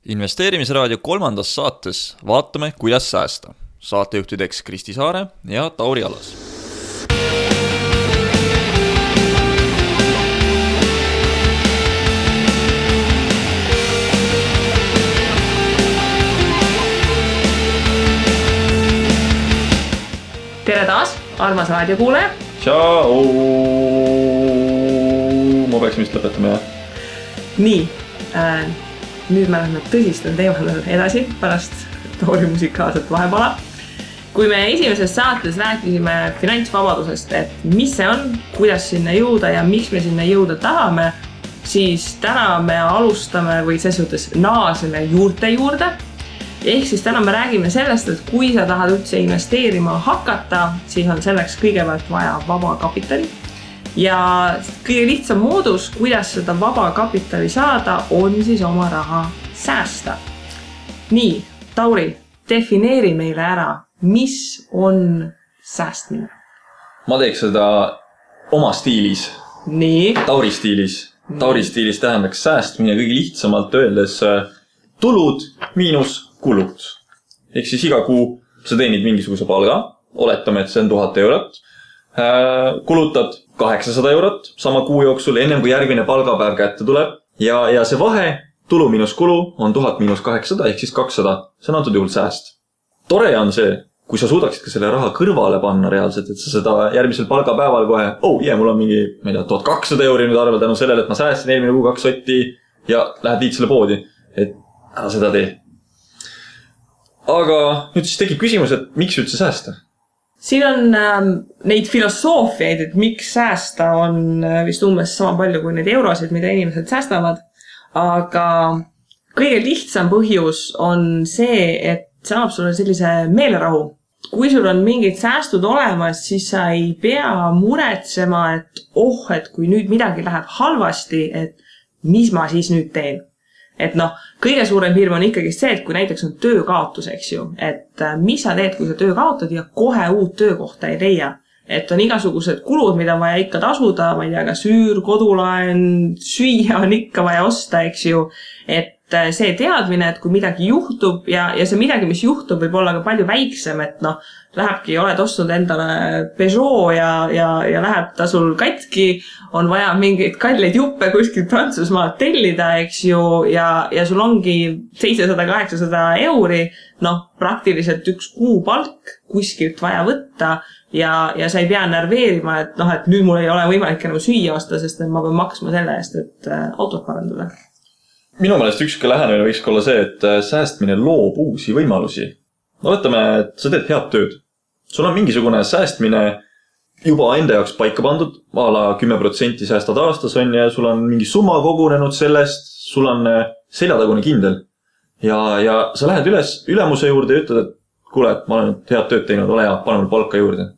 Investeerimisraadio 3. saates vaatame, kuidas säästa. Saatejuhtideks Kristi Saare ja Tauri Alas. Tere taas, armas raadiokuulaja. Tšau! Ma peaks vist lõpetama, jah? Nii, nüüd me läheme tõsistel teemadel edasi pärast Tauri musikaalset vahepala. Kui me esimeses saates rääkisime finantsvabadusest, et mis see on, kuidas sinna jõuda ja miks me sinna jõuda tahame, siis täna me alustame või ses suhtes naaseme juurte juurde. Ehk siis täna me räägime sellest, et kui sa tahad üldse investeerima hakata, siis on selleks kõigepealt vaja vaba kapitali. Ja kõige lihtsam moodus, kuidas seda vaba kapitali saada, on siis oma raha säästa. Nii, Tauri, defineeri meile ära, mis on säästmine? Ma teeks seda oma stiilis. Nii. Tauri stiilis. Tauri stiilis tähendaks säästmine kõige lihtsamalt öeldes tulud miinus kulud. Ehk siis iga kuu sa teenid mingisuguse palga, oletame, et see on 1000 eurot, kulutad 800 eurot sama kuu jooksul, ennem kui järgmine palgapäev kätte tuleb ja see vahe, tulu miinus kulu, on 1000 miinus 800 ehk siis 200. See on antud juhul sääst. Tore on see, kui sa suudaksid ka selle raha kõrvale panna reaalselt, et sa seda järgmisel palgapäeval kohe, mul on mingi, ma ei tea, 1200 euri nüüd arvel tänu sellele, et ma säästin eelmine kuu 2 sotti ja lähed viid selle poodi, et ära seda tee. Aga nüüd siis tekib küsimus, et miks üldse säästa? Siin on neid filosoofiaid, et miks säästa on vist umbes sama palju kui neid eurosid, mida inimesed säästavad. Aga kõige lihtsam põhjus on see, et see annab sulle sellise meelerahu. Kui sul on mingid säästud olemas, siis sa ei pea muretsema, et kui nüüd midagi läheb halvasti, et mis ma siis nüüd teen. Et kõige suurem hirm on ikkagi see, et kui näiteks on töökaotus, eks ju, et mis sa teed, kui sa töö kaotad ja kohe uut töökohta ei leia. Et on igasugused kulud, mida on vaja ikka tasuda, ma ei tea, ka süür, kodulaen, süüa on ikka vaja osta, eks ju. Et see teadmine, et kui midagi juhtub ja see midagi, mis juhtub, võib olla ka palju väiksem, et lähebki, oled ostnud endale Peugeot ja läheb ta sul katki, on vaja mingeid kalleid juppe kuskilt Prantsusmaalt tellida, eks ju, ja sul ongi 700-800 euri, praktiliselt üks kuupalk kuskilt vaja võtta ja sa ei pea nerveerima, et nüüd mul ei ole võimalik enam süüa osta, sest ma pean maksma selle eest, et autot parandada. Minu meelest ükski lähenemine võiks olla see, et säästmine loob uusi võimalusi. Võtame, et sa teed head tööd. Sul on mingisugune säästmine juba enda jaoks paika pandud, ala 10% säästad aastas on ja sul on mingi summa kogunenud sellest, sul on seljatagune kindel. Ja sa lähed ülemuse juurde ja ütled, et kuule, ma olen head tööd teinud, ole hea, pane mul palka juurde.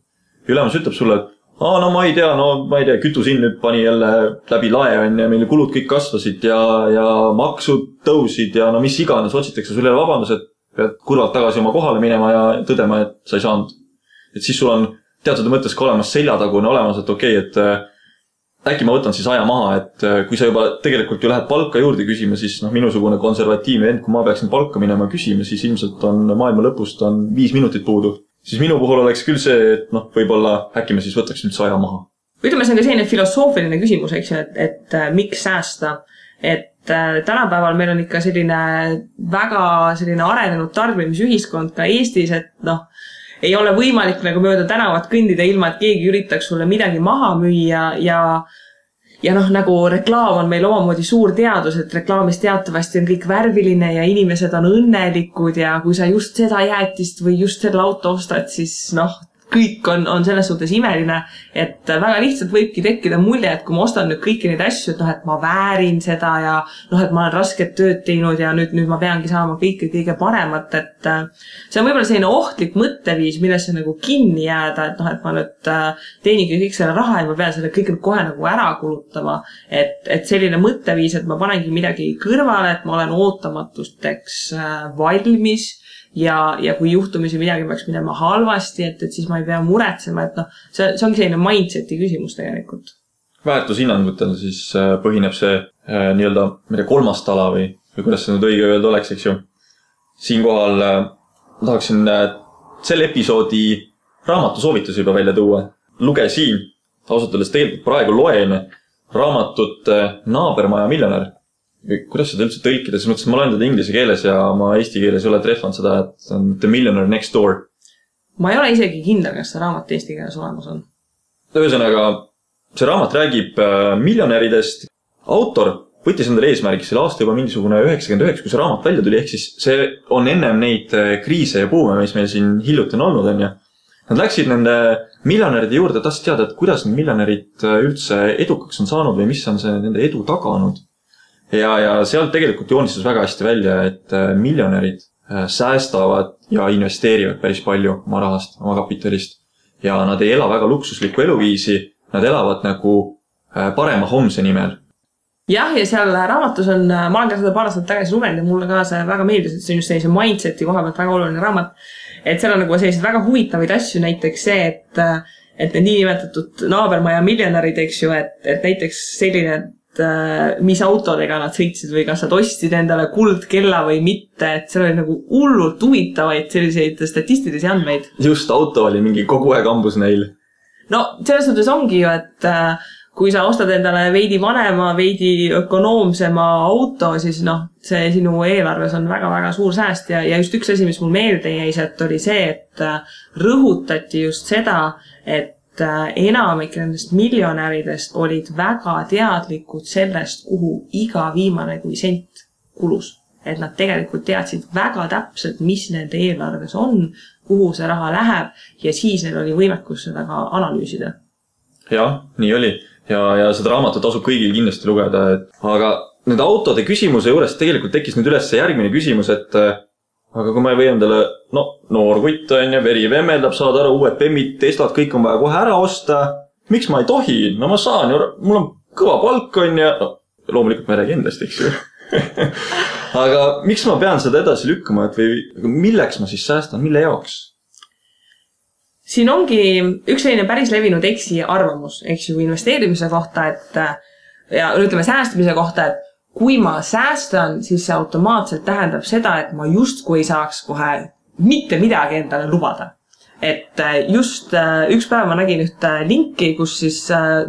Ülemus ütleb sulle, et ma ei tea, kütusin nüüd pani jälle läbi lae on ja meil kulud kõik kasvasid ja maksud tõusid ja mis iganes, otsitakse sulle vabandus, et pead kurvalt tagasi oma kohale minema ja tõdema, et sa ei saanud. Et siis sul on teatud mõttes ka olemas seljatagune olemas, et et äkki ma võtan siis aja maha, et kui sa juba tegelikult ju lähed palka juurde küsima, siis minusugune konservatiivne end, kui ma peaksin palka minema küsima, siis ilmselt on maailma lõpust on 5 minutit puudu. Siis minu puhul oleks küll see, et võib-olla äkki me siis võtaks üldse aja maha. Ütleme, see on ka selline filosoofiline küsimus, eks ju, et miks säästa. Et tänapäeval meil on ikka väga arenenud tarbimisühiskond ka Eestis, et ei ole võimalik nagu mööda tänavat kõndida ilma, et keegi üritaks sulle midagi maha müüa ja nagu reklaam on meil omamoodi suur teadus, et reklaamis teatavasti on kõik värviline ja inimesed on õnnelikud ja kui sa just seda jäätist või just selle auto ostad, siis kõik on selles suhtes imeline, et väga lihtsalt võibki tekkida mulje, et kui ma ostan nüüd kõiki neid asju, et ma väärin seda ja et ma olen rasket tööd teinud ja nüüd ma peangi saama kõige paremat, et see on võib-olla selline ohtlik mõtteviis, millesse nagu kinni jääda, et ma nüüd teeningi kõik selle raha ja ma pean selle kõik kohe nagu ära kulutama, et selline mõtteviis, et ma panengi midagi kõrvale, et ma olen ootamatusteks valmis ja kui juhtumisi midagi peaks minema halvasti, et siis ma ei pea muretsema, et see ongi selline mindseti küsimus tegelikult. Väärtushinnangutel siis põhineb see nii-öelda kolmas tala või või kuidas see nüüd õige öelda oleks, eks ju. Siinkohal tahaksin selle episoodi raamatusoovitusi juba välja tuua. Lugesin, ausalt öeldes tegelikult praegu loen raamatut Naabermaja miljonär. Kuidas seda üldse tõlkida? Siis mõtlesin, ma loen teda inglise keeles ja ma eesti keeles ei ole trehvanud seda, et on The Millionaire Next Door. Ma ei ole isegi kindel, kas see raamat eesti keeles olemas on. Ühesõnaga, see raamat räägib miljonäridest. Autor võttis endale eesmärgi selle aasta juba mingisugune 99, kui see raamat välja tuli, ehk siis see on ennem neid kriise ja puume, mis meil siin hiljuti on olnud, on ja. Nad läksid nende miljonäride juurde, tahtsid teada, et kuidas need miljonärid üldse edukaks on saanud või mis on see nende edu taganud. Ja sealt tegelikult joonistas väga hästi välja, et miljonärid säästavad ja investeerivad päris palju oma rahast, oma kapitalist. Ja nad ei ela väga luksuslikku eluviisi, nad elavad nagu parema homse nimel. Jah, ja seal raamatus on, ma olen ka seda paar aastat tagasi lugenud ja mulle ka see väga meeldis, et see on just sellise mindseti koha pealt väga oluline raamat. Et seal on nagu sellised väga huvitavaid asju, näiteks see, et need niinimetatud naabermaja miljonärid, eks ju, et näiteks selline, et mis autodega nad sõitsid või kas nad ostsid endale kuldkella või mitte, et seal oli nagu hullult huvitavaid selliseid statistilisi andmeid. Just, auto oli mingi kogu aeg ambus neil. No, selles suhtes ongi ju, et kui sa ostad endale veidi vanema, veidi ökonoomsema auto, siis see sinu eelarves on väga-väga suur sääst ja just üks asi, mis mul meelde jäi, et oli see, et rõhutati just seda, et enamik nendest miljonäridest olid väga teadlikud sellest, kuhu iga viimane kui sent kulus. Et nad tegelikult teadsid väga täpselt, mis nende eelarves on, kuhu see raha läheb ja siis neil oli võimekus seda ka analüüsida. Jah, nii oli. Ja seda raamatut tasub kõigil kindlasti lugeda. Aga nüüd autode küsimuse juures tegelikult tekkis nüüd üles järgmine küsimus, et aga kui ma ei või endale, noor kutt on ja veri vemmeldab, saad aru, uued Bemmid, Teslad, kõik on vaja kohe ära osta. Miks ma ei tohi? No ma saan ju, mul on kõva palk on ja loomulikult ma ei räägi endast, eks ju. Aga miks ma pean seda edasi lükkama, et või milleks ma siis säästan, mille jaoks? Siin ongi üks selline päris levinud eksi arvamus, eks ju, investeerimise kohta, ja ütleme säästmise kohta, et kui ma säästan, siis see automaatselt tähendab seda, et ma justkui ei saaks kohe mitte midagi endale lubada. Et just üks päev ma nägin ühte linki, kus siis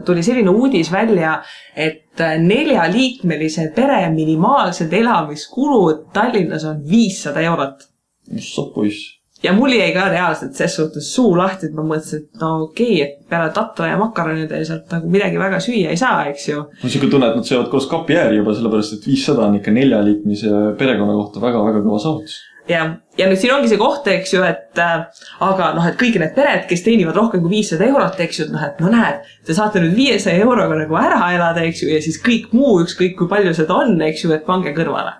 tuli selline uudis välja, et 4-liikmelise pere minimaalsed elamiskulud Tallinnas on 500 €. Mis sa poiss? Ja mul jäi ka reaalselt ses suhtes suu lahti, et ma mõtlesin, et okei, et peale tatra ja makaronide ja sealt nagu midagi väga süüa ei saa, eks ju. Ma siuke tunne, et nad söövad koos kapi ääri juba, sellepärast, et 500 on ikka 4-liikmise perekonna kohta väga-väga kõva saavutus. Ja nüüd siin ongi see koht, eks ju, et aga et kõik need pered, kes teenivad rohkem kui 500 €, eks ju, et näed, te saate nüüd 500 € nagu ära elada, eks ju, ja siis kõik muu, ükskõik kui palju seda on, eks ju, et pange kõrvale.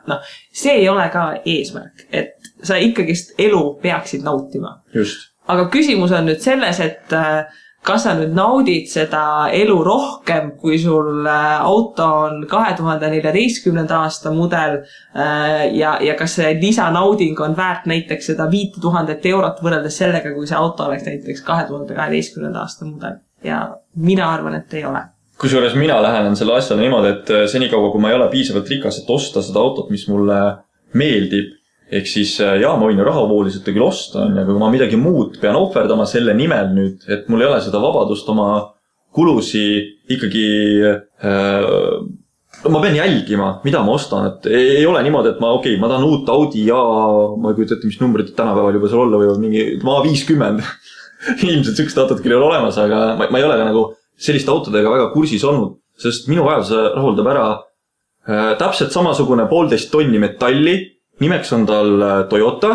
See ei ole ka eesmärk, et sa ikkagist elu peaksid nautima. Just. Aga küsimus on nüüd selles, et kas sa nüüd naudid seda elu rohkem, kui sul auto on 2014. aasta mudel ja kas see lisanauding on väärt näiteks seda 5000 € võrreldes sellega, kui see auto oleks näiteks 2012. aasta mudel. Ja mina arvan, et ei ole. Kusjuures mina lähenen selle asjale niimoodi, et senikaua, kui ma ei ole piisavalt rikas, et osta seda autot, mis mulle meeldib, ehk siis ma võin ju rahavooliselt küll osta, aga kui ma midagi muud pean ohverdama selle nimel nüüd, et mul ei ole seda vabadust oma kulusi ikkagi, ma pean jälgima, mida ma ostan, et ei ole niimoodi, et ma tahan uut Audi ja ma ei kujuta ette, mis numbrid tänapäeval juba seal olla või mingi A50. Ilmselt sükst autot küll ei ole olemas, aga ma ei ole ka nagu selliste autodega väga kursis olnud, sest minu vajaduse rahuldab ära täpselt samasugune 1,5 tonni metalli. Nimeks on tal Toyota,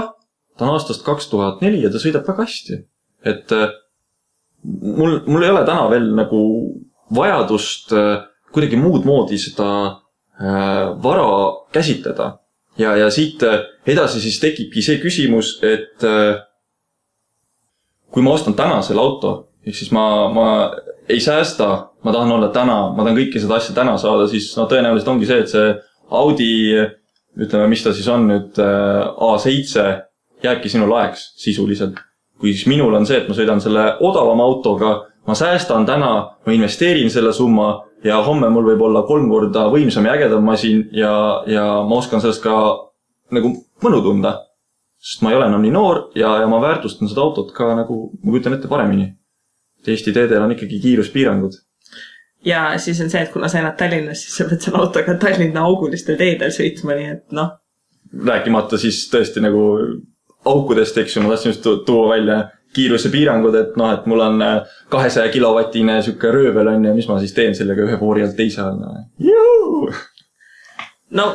ta on aastast 2004 ja ta sõidab väga hästi. Et mul ei ole täna veel nagu vajadust kuidagi muud moodi seda vara käsitleda. Ja siit edasi siis tekibki see küsimus, et kui ma ostan täna selle auto, ehk siis ma ei säästa, ma tahan olla täna, ma tahan kõiki seda asja täna saada, siis tõenäoliselt ongi see, et see Audi, ütleme, mis ta siis on nüüd A7, jääbki sinu laeks sisuliselt. Kui siis minul on see, et ma sõidan selle odavama autoga, ma säästan täna, ma investeerin selle summa ja homme mul võib olla 3 korda võimsam ja ägedam masin ja ma oskan sellest ka nagu mõnu tunda. Sest ma ei ole enam nii noor ja ma väärtustan seda autot ka nagu, ma kujutan ette paremini. Eesti teedel on ikkagi kiiruspiirangud. Ja siis on see, et kuna sa elad Tallinnas, siis sa pead selle autoga Tallinna augulistel teedel sõitma, nii et noh. Rääkimata siis tõesti nagu aukudest, eks ju, ma tahtsin just tuua välja kiiruse piirangud, et noh, et mul on 200 kilovatine sükke röövel on ja mis ma siis teen sellega ühe voori alt teise all. No,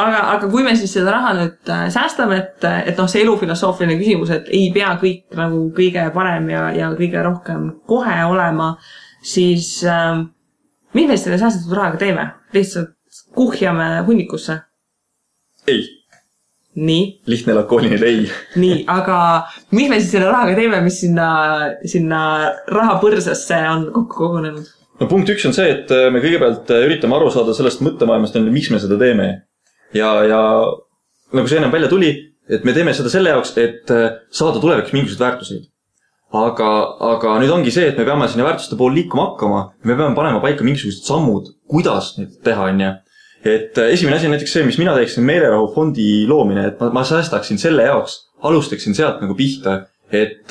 aga kui me siis seda raha nüüd säästame, et noh, see elufilosoofiline küsimus, et ei pea kõik nagu kõige parem ja kõige rohkem kohe olema, siis mis me selle säästatud rahaga teeme? Lihtsalt kuhjame hunnikusse? Ei. Nii? Lihtne lakooniline ei. Nii, aga mis me siis selle rahaga teeme, mis sinna rahapõrsasse on kokku kogunenud? No punkt 1 on see, et me kõigepealt üritame aru saada sellest mõttemaailmast, miks me seda teeme. Ja nagu see enam välja tuli, et me teeme seda selle jaoks, et saada tuleviks mingisugused väärtuseid. Aga nüüd ongi see, et me peame sinna väärtuste pool liikuma hakkama. Me peame panema paika mingisugused sammud, kuidas neid teha on. Et esimene asi on näiteks see, mis mina teeksin meelerahufondi loomine, et ma säästaksin selle jaoks, alustaksin sealt nagu pihta, et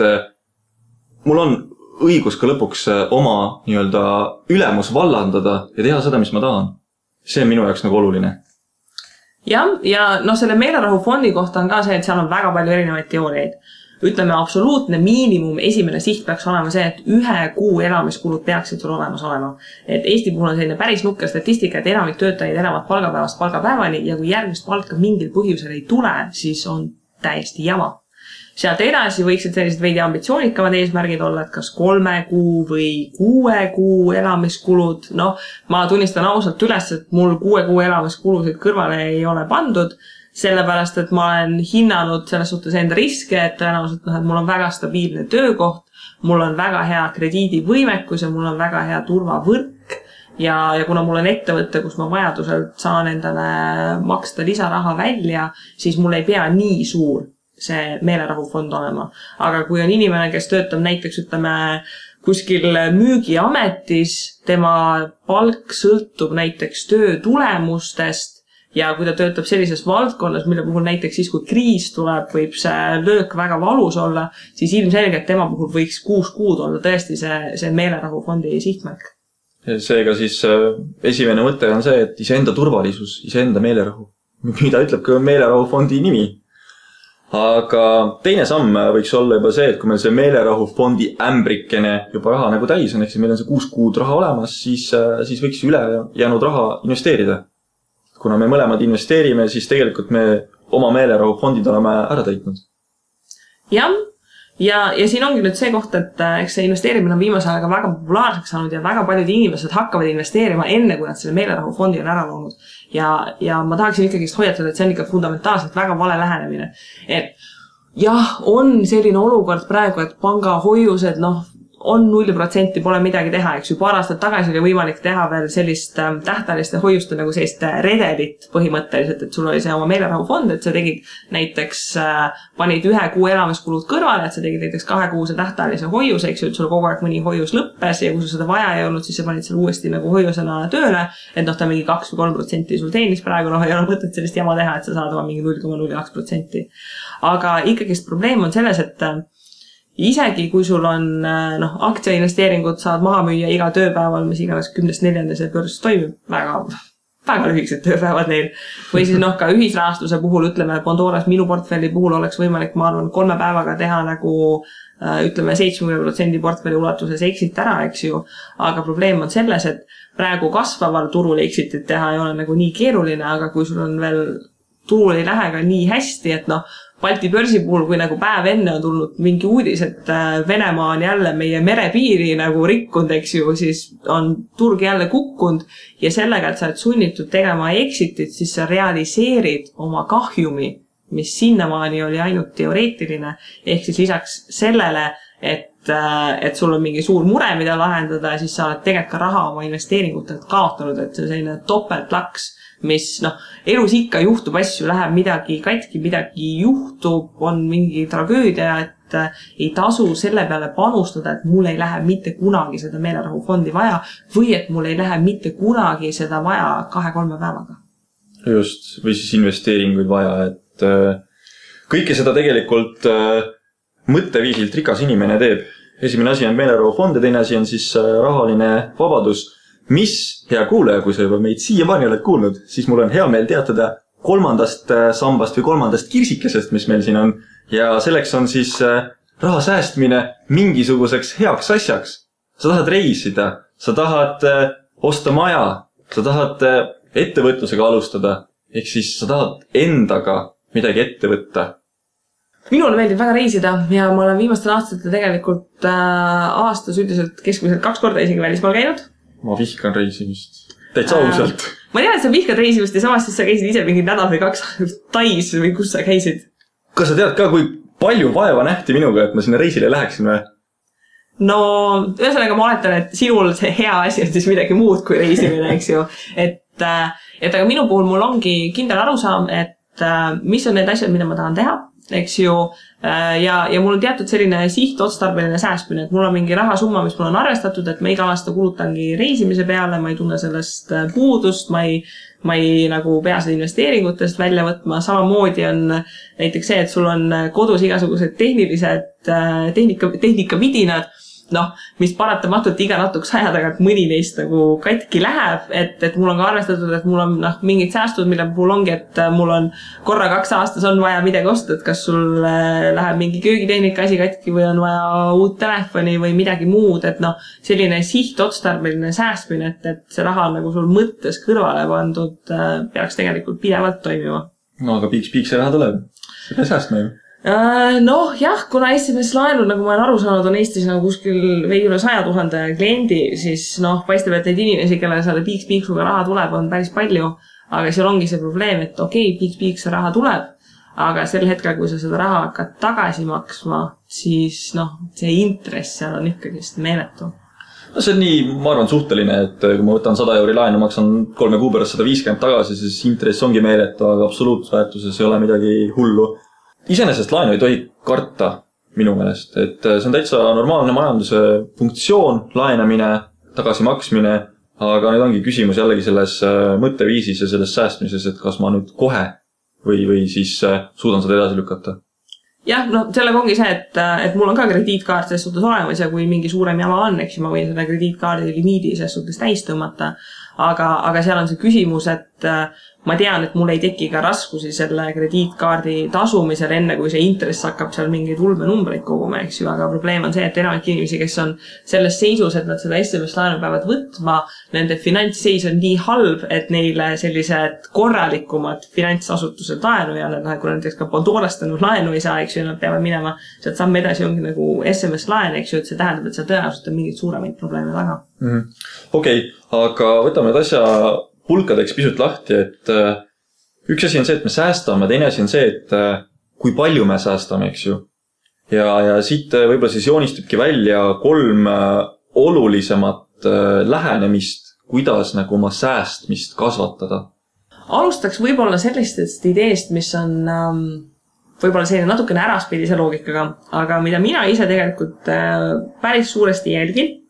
mul on õigus ka lõpuks oma nii-öelda ülemus vallandada ja teha seda, mis ma tahan. See on minu jaoks nagu oluline. Ja no selle meelerahufondi kohta on ka see, et seal on väga palju erinevaid teooriaid. Ütleme, absoluutne miinimum esimene siht peaks olema see, et 1 kuu elamiskulud peaksid sul olemas olema. Et Eesti puhul on selline päris nukker statistika, et enamik töötajaid elavad palgapäevast palgapäevani ja kui järgmist palka mingil põhjusel ei tule, siis on täiesti jama. Sealt edasi võiksid sellised veidi ambitsioonikamad eesmärgid olla, et kas 3 kuu või 6 kuu elamiskulud. Noh, ma tunnistan ausalt üles, et mul 6 kuu elamiskulusid kõrvale ei ole pandud, sellepärast, et ma olen hinnanud selles suhtes enda riske, et tõenäoliselt et mul on väga stabiilne töökoht, mul on väga hea krediidivõimekus ja mul on väga hea turvavõrk ja kuna mul on ettevõte, kus ma vajadusel saan endale maksta lisaraha välja, siis mul ei pea nii suur see meelerahufond olema. Aga kui on inimene, kes töötab näiteks, ütleme, kuskil müügiametis, tema palk sõltub näiteks töö tulemustest ja kui ta töötab sellises valdkonnas, mille puhul näiteks siis, kui kriis tuleb, võib see löök väga valus olla, siis ilmselgelt tema puhul võiks 6 kuud olla tõesti see meelerahufondi sihtmärk. Seega siis esimene mõte on see, et iseenda turvalisus, iseenda meelerahu, mida ütleb ka meelerahufondi nimi. Aga teine samm võiks olla juba see, et kui meil see meelerahufondi ämbrikene juba raha nagu täis on, ehk meil on see 6 kuud raha olemas, siis võiks üle jäänud raha investeerida. Kuna me mõlemad investeerime, siis tegelikult me oma meelerahufondid oleme ära täitnud. Ja siin ongi nüüd see koht, et eks see investeerimine on viimase ajaga väga populaarseks saanud ja väga paljud inimesed hakkavad investeerima enne, kui nad selle meelerahufondi on ära loonud. Ja ma tahaksin ikkagi hoiatada, et see on ikka fundamentaalselt väga vale lähenemine. Et jah, on selline olukord praegu, et pangahoiused, on 0%, pole midagi teha, eks ju. Paar aastat tagasi oli võimalik teha veel sellist tähtajaliste hoiuste nagu sellist redelit põhimõtteliselt, et sul oli see oma meelerahufond, et sa tegid näiteks, panid 1 kuu elamiskulud kõrvale, et sa tegid näiteks 2 kuuse tähtajalise hoiuse, eks ju, et sul kogu aeg mõni hoius lõppes ja kui sul seda vaja ei olnud, siis sa panid seal uuesti nagu hoiusena tööle, et ta mingi 2 või 3% sul teenis praegu, ei ole mõtet sellist jama teha, et sa saad oma mingi 0,02%. Aga ikkagist probleem on selles, et isegi kui sul on aktsiainvesteeringud saad maha müüa iga tööpäeval, mis iganes 10.4. see börs toimib, väga lühikesed tööpäevad neil. Või siis ka ühisrahastuse puhul, ütleme, Pandoras minu portfelli puhul oleks võimalik, ma arvan, 3 päevaga teha nagu, ütleme, 70% portfelli ulatuses exit ära, eks ju. Aga probleem on selles, et praegu kasvaval turul exitit teha ei ole nagu nii keeruline, aga kui sul on veel turul ei lähe ka nii hästi, et Balti börsi puhul, kui nagu päev enne on tulnud mingi uudis, et Venemaa on jälle meie merepiiri nagu rikkunud, eks ju, siis on turg jälle kukkunud ja sellega, et sa oled sunnitud tegema exitit, siis sa realiseerid oma kahjumi, mis sinnamaani oli ainult teoreetiline, ehk siis lisaks sellele, et sul on mingi suur mure, mida lahendada, siis sa oled tegelikult ka raha oma investeeringutelt kaotanud, et see on selline topeltlaks, mis elus ikka juhtub asju, läheb midagi katki, midagi juhtub, on mingi tragöödia, ei tasu selle peale panustada, et mul ei lähe mitte kunagi seda meelerahufondi vaja või et mul ei lähe mitte kunagi seda vaja 2-3 päevaga. Just, või siis investeeringuid vaja, et kõike seda tegelikult mõtteviisilt rikas inimene teeb. Esimene asi on meelerahufond ja teine asi on siis rahaline vabadus. Mis, hea kuulaja, kui sa juba meid siiamaani oled kuulnud, siis mul on hea meel teatada 3. sambast või 3. kirsikesest, mis meil siin on. Ja selleks on siis raha säästmine mingisuguseks heaks asjaks. Sa tahad reisida, sa tahad osta maja, sa tahad ettevõtlusega alustada, ehk siis sa tahad endaga midagi ette võtta. Minule meeldib väga reisida ja ma olen viimastel aastatel tegelikult aastas üldiselt keskmiselt 2 korda isegi välismaal käinud. Ma vihkan reisimist. Täitsa ausalt. Ma tean, et sa vihkad reisimist ja samas siis sa käisid ise mingi nädal või 2 Tais või kus sa käisid. Kas sa tead ka, kui palju vaeva nähti minuga, et ma sinna reisile läheksin või? No, ühesõnaga ma oletan, et sinul see hea asi on siis midagi muud kui reisimine, eks ju. Et aga minu puhul mul ongi kindel arusaam, et mis on need asjad, mida ma tahan teha, eks ju. Ja mul on teatud selline sihtotstarbeline säästmine, et mul on mingi rahasumma, mis mul on arvestatud, et ma iga aasta kulutangi reisimise peale, ma ei tunne sellest puudust, ma ei nagu pea seda investeeringutest välja võtma. Samamoodi on näiteks see, et sul on kodus igasugused tehnika vidinad, mis paratamatult iga natukese aja tagant mõni neist nagu katki läheb, et mul on ka arvestatud, et mul on mingid säästud, mille puhul ongi, et mul on korra 2 aastas on vaja midagi osta, et kas sul läheb mingi köögitehnika asi katki või on vaja uut telefoni või midagi muud, et selline sihtotstarbeline säästmine, et see raha on nagu sul mõttes kõrvale pandud, peaks tegelikult pidevalt toimima. No aga piiks see raha tuleb. See peab säästma ju. Jah, kuna SMS laenud, nagu ma olen aru saanud, on Eestis nagu kuskil veidi üle 100 000 kliendi, siis paistab, et neid inimesi, kellele selle piiksuga raha tuleb, on päris palju. Aga seal ongi see probleem, et okei, piiks see raha tuleb, aga sel hetkel, kui sa seda raha hakkad tagasi maksma, siis see intress seal on ikkagi meeletu. No see on nii, ma arvan, suhteline, et kui ma võtan 100 euri laenu, maksan 3 kuu pärast 150 tagasi, siis intress ongi meeletu, aga absoluutväärtuses ei ole midagi hullu. Iseenesest laenu ei tohi karta minu meelest, et see on täitsa normaalne majanduse funktsioon, laenamine, tagasimaksmine, aga nüüd ongi küsimus jällegi selles mõtteviisis ja selles säästmises, et kas ma nüüd kohe või siis suudan seda edasi lükata. Jah, sellega ongi see, et mul on ka krediitkaart selles suhtes olemas ja kui mingi suurem jama on, eks ma võin selle krediitkaardi limiidi selles suhtes täis tõmmata, aga seal on see küsimus, et ma tean, et mul ei teki ka raskusi selle krediitkaardi tasumisel enne, kui see intress hakkab seal mingeid ulmenumbreid koguma, eks ju, aga probleem on see, et enamik inimesi, kes on selles seisus, et nad seda SMS-laenu peavad võtma, nende finantsseis on nii halb, et neile sellised korralikumad finantsasutused laenu ja kui näiteks ka Pandorast laenu ei saa, eks ju, nad peavad minema sealt samm edasi ongi nagu SMS-laen, eks ju, et see tähendab, et seal tõenäoliselt on mingid suuremaid probleeme taga. Okei, aga võtame nüüd asja pulkadeks pisut lahti, et üks asi on see, et me säästame, teine asi on see, et kui palju me säästame, eks ju. Ja siit võib-olla siis joonistubki välja 3 olulisemat lähenemist, kuidas nagu oma säästmist kasvatada. Alustaks võib-olla sellistest ideest, mis on võib-olla selline natukene äraspidise loogikaga, aga mida mina ise tegelikult päris suuresti jälgin.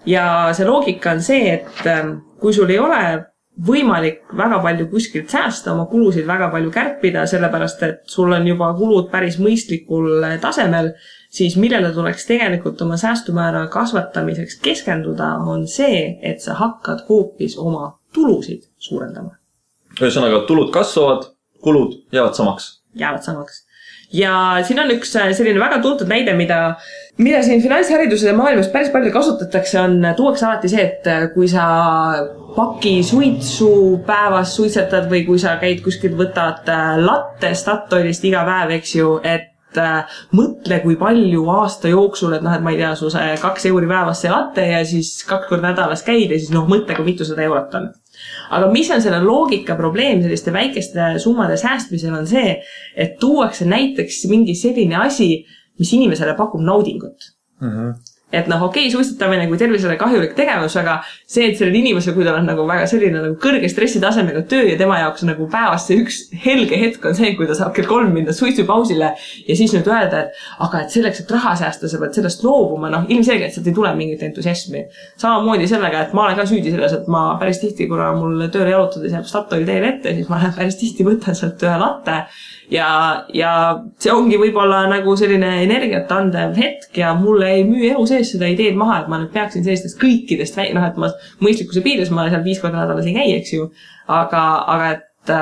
Ja see loogika on see, et kui sul ei ole võimalik väga palju kuskilt säästa, oma kulusid väga palju kärpida, sellepärast, et sul on juba kulud päris mõistlikul tasemel, siis millele tuleks tegelikult oma säästumäära kasvatamiseks keskenduda, on see, et sa hakkad hoopis oma tulusid suurendama. Ühesõnaga, tulud kasvavad, kulud jäävad samaks. Ja siin on üks selline väga tuntud näide, mida siin finantshariduse maailmas päris palju kasutatakse, tuuakse alati see, et kui sa paki suitsu päevas suitsetad või kui sa käid kuskil võtad latte Statoilist iga päev, eks ju, et mõtle, kui palju aasta jooksul, et ma ei tea, su see 2 euri päevas see latte ja siis 2 korda nädalas käid ja siis mõtle, kui mitu 100 eurot on. Aga mis on selle loogika probleem selliste väikeste summade säästmisel on see, et tuuakse näiteks mingi selline asi, mis inimesele pakub naudingut. et noh, okei, suitsetamine kui tervisele kahjulik tegevus, aga see, et sellel inimesel, kui tal on nagu väga selline nagu kõrge stressitasemega töö ja tema jaoks nagu päevast see üks helge hetk on see, kui ta saab kell 3 minna suitsupausile ja siis nüüd öelda, et aga et selleks, et raha säästa, sa pead sellest loobuma, noh, ilmselgelt sealt ei tule mingit entusiasmi. Samamoodi sellega, et ma olen ka süüdi selles, et ma päris tihti, kuna mul tööle jalutades jääb Statoil teel ette, siis ma päris tihti võtan sealt ühe latte ja see ongi võib-olla nagu selline energiat andev hetk ja mulle ei müü elu sees seda ideed maha, et ma nüüd peaksin sellistest kõikidest noh, et ma mõistlikkuse piires ma seal 5 korda nädalas ei käi, eks ju, aga et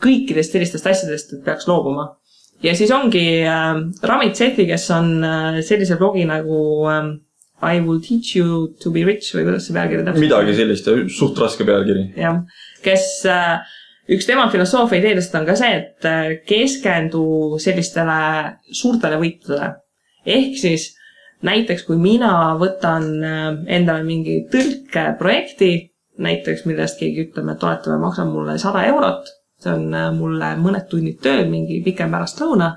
kõikidest sellistest asjadest peaks loobuma. Ja siis ongi Ramit Sethi, kes on sellise blogi nagu I will teach you to be rich või kuidas see pealkiri täpselt? Midagi sellist, suht raske pealkiri. Jah, kes üks tema filosoofia ideedest on ka see, et keskendu sellistele suurtele võitudele. Ehk siis näiteks, kui mina võtan endale mingi tõlkeprojekti, näiteks millest keegi ütleme, et toetame, maksab mulle 100 eurot, see on mulle mõned tunnid tööd, mingi pikem pärast lõuna,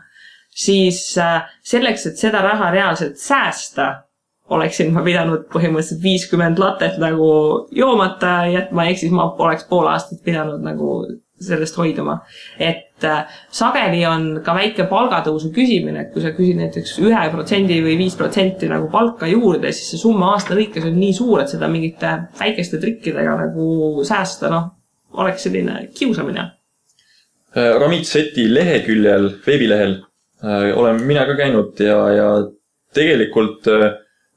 siis selleks, et seda raha reaalselt säästa, oleksin ma pidanud põhimõtteliselt 50 latet nagu joomata jätma, ehk siis ma oleks pool aastat pidanud nagu sellest hoiduma. Et sageli on ka väike palgatõusu küsimine, et kui sa küsid näiteks 1% või 5% nagu palka juurde, siis see summa aasta lõikes on nii suur, et seda mingite väikeste trikkidega nagu säästa, noh, oleks selline kiusamine. Ramit Sethi leheküljel, veebilehel olen mina ka käinud ja tegelikult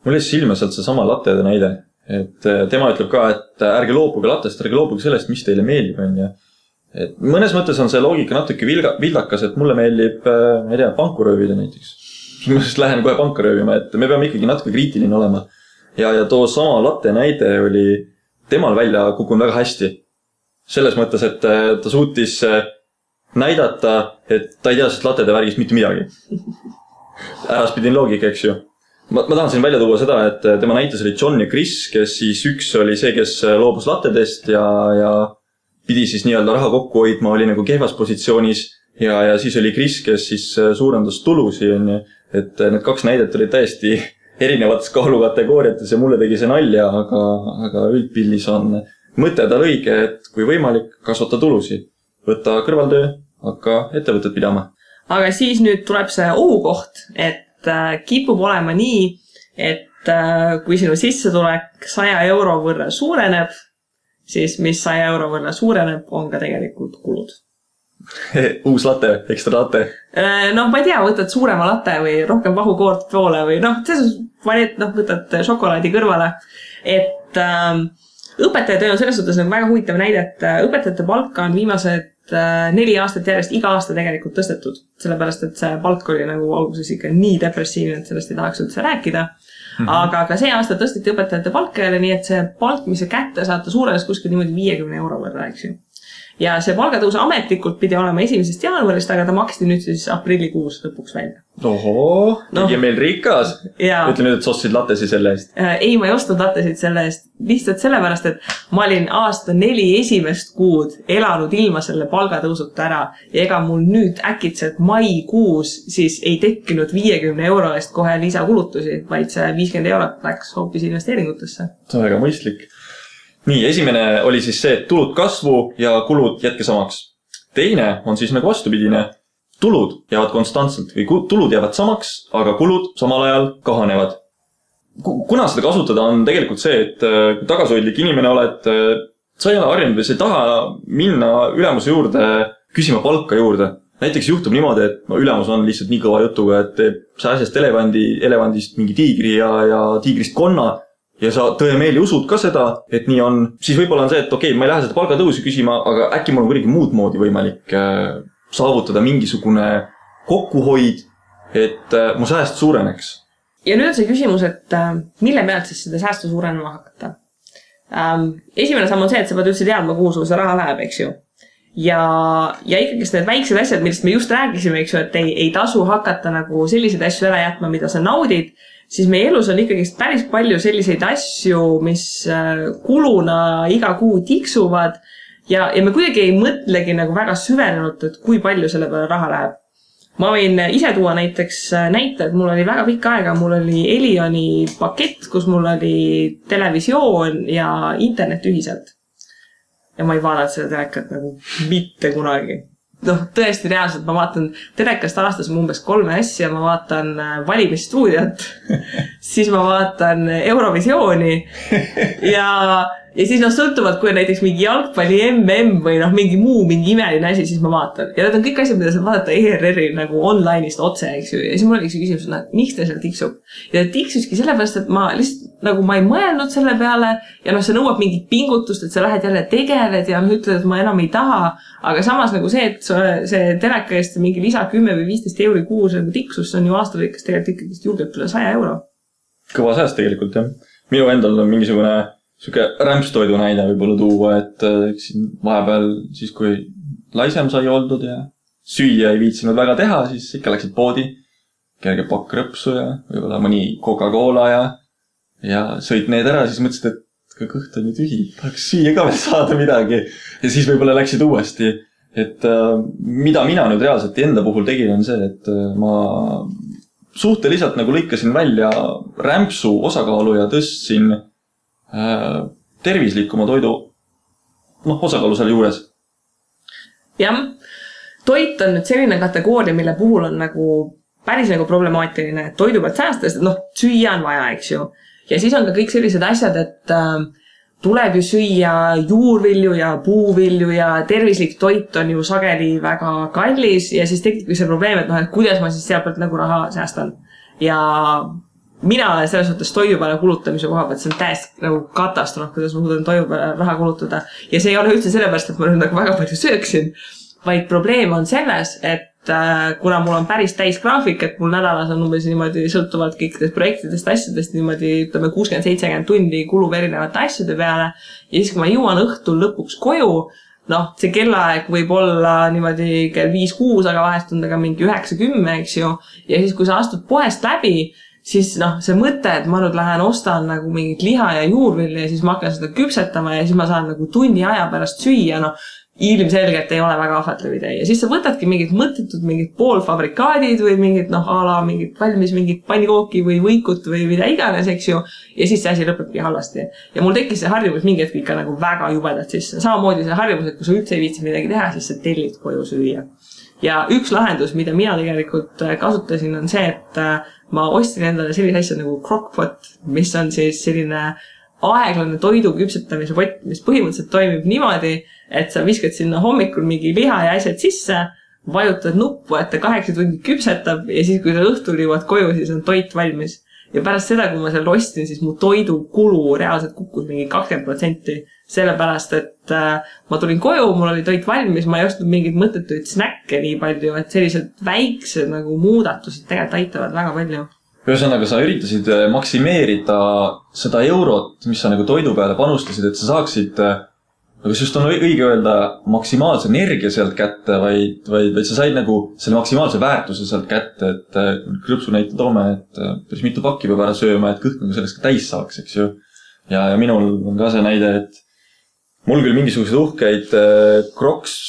mul jäi silma sealt see sama lattede näide, et tema ütleb ka, et ärge loobuge lattest, ärge loobuge sellest, mis teile meeldib, on ja et mõnes mõttes on see loogika natuke vildakas, et mulle meeldib, ma ei tea, panku röövida näiteks. Ma siis lähen kohe panka röövima, et me peame ikkagi natuke kriitiline olema. Ja too sama latte näide oli temal välja kukkunud väga hästi. Selles mõttes, et ta suutis näidata, et ta ei tea sest lattede värgist mitte midagi. Äraspidin loogika, eks ju. Ma tahan siin välja tuua seda, et tema näites oli John ja Chris, kes siis üks oli see, kes loobus lattedest ja pidi siis nii-öelda raha kokku hoidma, oli nagu kehvas positsioonis ja siis oli Chris, kes siis suurendas tulusi, et need 2 näidet olid täiesti erinevates kaalukategooriates ja mulle tegi see nalja, aga üldpildis on mõte tal õige, et kui võimalik, kasvata tulusi, võtta kõrvaltöö, hakka ettevõtted pidama. Aga siis nüüd tuleb see ohukoht, et kipub olema nii, et kui sinu sissetulek 100 euro võrra suureneb, siis mis 100 euro võrra suureneb, on ka tegelikult kulud. Uus latte, ekstra latte. Noh, ma ei tea, võtad suurema latte või rohkem vahukoort poole või noh, võtad šokolaadi kõrvale. Et õpetajatöö on selles suhtes nagu väga huvitav näide, et õpetajate palka on viimased 4 aastat järjest iga aasta tegelikult tõstetud. Sellepärast, et see palk oli nagu alguses ikka nii depressiivne, et sellest ei tahaks üldse rääkida. Aga ka see aasta tõsteti õpetajate palka jälle, nii et see palk, mis see kätte saata suurenes kuskil niimoodi 50 euro võrra, eks ju. Ja see palgatõus ametlikult pidi olema 1. jaanuarist, aga ta maksti nüüd siis aprillikuus lõpuks välja. Ohoo, tegi meil rikas. Ütle nüüd, et sa ostsid lattesi selle eest. Ei, ma ei ostnud lattesid selle eest. Lihtsalt sellepärast, et ma olin aasta 4 esimest kuud elanud ilma selle palgatõusuta ära. Ja ega mul nüüd äkitselt maikuus siis ei tekkinud 50 euro eest kohe lisakulutusi, vaid see 50 eurot läks hoopis investeeringutesse. See on väga mõistlik. Nii, esimene oli siis see, et tulud kasvu ja kulud jätke samaks. Teine on siis nagu vastupidine. Tulud jäävad konstantselt või tulud jäävad samaks, aga kulud samal ajal kahanevad. Kuna seda kasutada on tegelikult see, et tagasihoidlik inimene oled, sa ei ole harjunud või sa ei taha minna ülemuse juurde küsima palka juurde. Näiteks juhtub niimoodi, et ülemus on lihtsalt nii kõva jutuga, et sa asjast elevandist mingi tiigri ja tiigrist konna ja sa tõemeeli usud ka seda, et nii on, siis võib-olla on see, et okei, ma ei lähe seda palgatõusi küsima, aga äkki mul on kuidagi muud moodi võimalik saavutada mingisugune kokkuhoid, et mu sääst suureneks. Ja nüüd on see küsimus, et mille pealt siis seda säästu suurenema hakata? Esimene samm on see, et sa pead üldse teadma, kuhu sul see raha läheb, eks ju. Ja ikkagi need väiksed asjad, millest me just rääkisime, eks ju, et ei tasu hakata nagu selliseid asju ära jätma, mida sa naudid, siis meie elus on ikkagi päris palju selliseid asju, mis kuluna iga kuu tiksuvad ja me kuidagi ei mõtlegi nagu väga süvenenult, et kui palju selle peale raha läheb. ma võin ise tuua näiteks näite, et mul oli väga pikka aega, mul oli Elioni pakett, kus mul oli televisioon ja internet ühiselt. Ja ma ei vaadanud seda telekat nagu mitte kunagi. Noh, tõesti reaalselt ma vaatan telekast aastas umbes 3 asja, ma vaatan valimisstuudiat, siis ma vaatan Eurovisiooni ja siis sõltuvalt, kui näiteks mingi jalgpalli MM või mingi muu, mingi imeline asi, siis ma vaatan. Ja need on kõik asjad, mida saab vaadata ERR-i nagu online'ist otse, eks ju. Ja siis mul oli küsimus, et miks ta seal tiksub? Ja ta tiksuski sellepärast, et ma lihtsalt nagu ma ei mõelnud selle peale ja see nõuab mingit pingutust, et sa lähed jälle tegeled ja ütled, et ma enam ei taha. Aga samas nagu see, et see teleka eest mingi lisa 10 või 15 euri kuus nagu tiksus, see on ju aastalõikes tegelikult ikkagi julgelt üle 100 euro. Kõva sääst tegelikult, jah. Minu endal on mingisugune siuke rämpstoidu näide võib-olla tuua, et vahepeal siis, kui laisem sai oldud ja süüa ei viitsinud väga teha, siis ikka läksid poodi, kerge pakk rõpsu ja võib-olla mõni Coca-Cola ja sõid need ära, siis mõtlesid, et kõht on ju tühi, tahaks süüa ka veel saada midagi. Ja siis võib-olla läksid uuesti. Et mida mina nüüd reaalselt enda puhul tegin on see, et ma suhteliselt nagu lõikasin välja rämpsu osakaalu ja tõstsin tervislikuma toidu osakaalu selle juures. Jah, toit on nüüd selline kategooria, mille puhul on nagu päris nagu problemaatiline, et toidu pealt säästes, süüa on vaja, eks ju. Ja siis on ka kõik sellised asjad, et tuleb ju süüa juurvilju ja puuvilju ja tervislik toit on ju sageli väga kallis ja siis tekib see probleem, et kuidas ma siis seal pealt nagu raha säästan. Ja mina selles mõttes toidu peale kulutamise koha pealt, see on täiesti nagu katastroof, kuidas ma suudan toidu peale raha kulutada. Ja see ei ole üldse sellepärast, et ma nüüd nagu väga palju sööksin, vaid probleem on selles, et kuna mul on päris täis graafik, et mul nädalas on umbes niimoodi sõltuvalt kõikidest projektidest, asjadest niimoodi, ütleme 60-70 tundi kulub erinevate asjade peale ja siis, kui ma jõuan õhtul lõpuks koju, see kellaaeg võib olla niimoodi kell 5-6, aga vahest on ta ka mingi 9-10, eks ju, ja siis, kui sa astud poest läbi, siis see mõte, et ma nüüd lähen ostan nagu mingit liha ja juurvilja ja siis ma hakkan seda küpsetama ja siis ma saan nagu tunni aja pärast süüa, ilmselgelt ei ole väga ahvatlev idee. Ja siis sa võtadki mingid mõttetud, mingid poolfabrikaadid või mingid, ala mingid valmis mingid pannikooki või võikut või mida iganes, eks ju. Ja siis see asi lõpebki halvasti. Ja mul tekkis see harjumus mingi hetk ikka nagu väga jubedalt sisse. Samamoodi see harjumus, et kui sa üldse ei viitsi midagi teha, siis sa tellid koju süüa. Ja üks lahendus, mida mina tegelikult kasutasin, on see, et ma ostsin endale sellise asja nagu crockpot, mis on siis selline aeglane toidu küpsetamise pott, mis põhimõtteliselt toimib niimoodi, et sa viskad sinna hommikul mingi liha ja asjad sisse, vajutad nuppu, et ta 8 tundi küpsetab ja siis, kui sa õhtul jõuad koju, siis on toit valmis. Ja pärast seda, kui ma seal ostin, siis mu toidukulu reaalselt kukkus mingi 20%, sellepärast, et ma tulin koju, mul oli toit valmis, ma ei ostnud mingid mõttetuid snäkke nii palju, et sellised väiksed nagu muudatused tegelikult aitavad väga palju. Ühesõnaga, sa üritasid maksimeerida seda eurot, mis sa nagu toidu peale panustasid, et sa saaksid, aga just on õige öelda maksimaalse energia sealt kätte, vaid sa said nagu selle maksimaalse väärtuse sealt kätte, et krõpsu näite toome, et päris mitu pakki peab ära sööma, et kõht nagu sellest ka täis saaks, eks ju. Ja minul on ka see näide, et mul küll mingisugused uhkeid Crocs,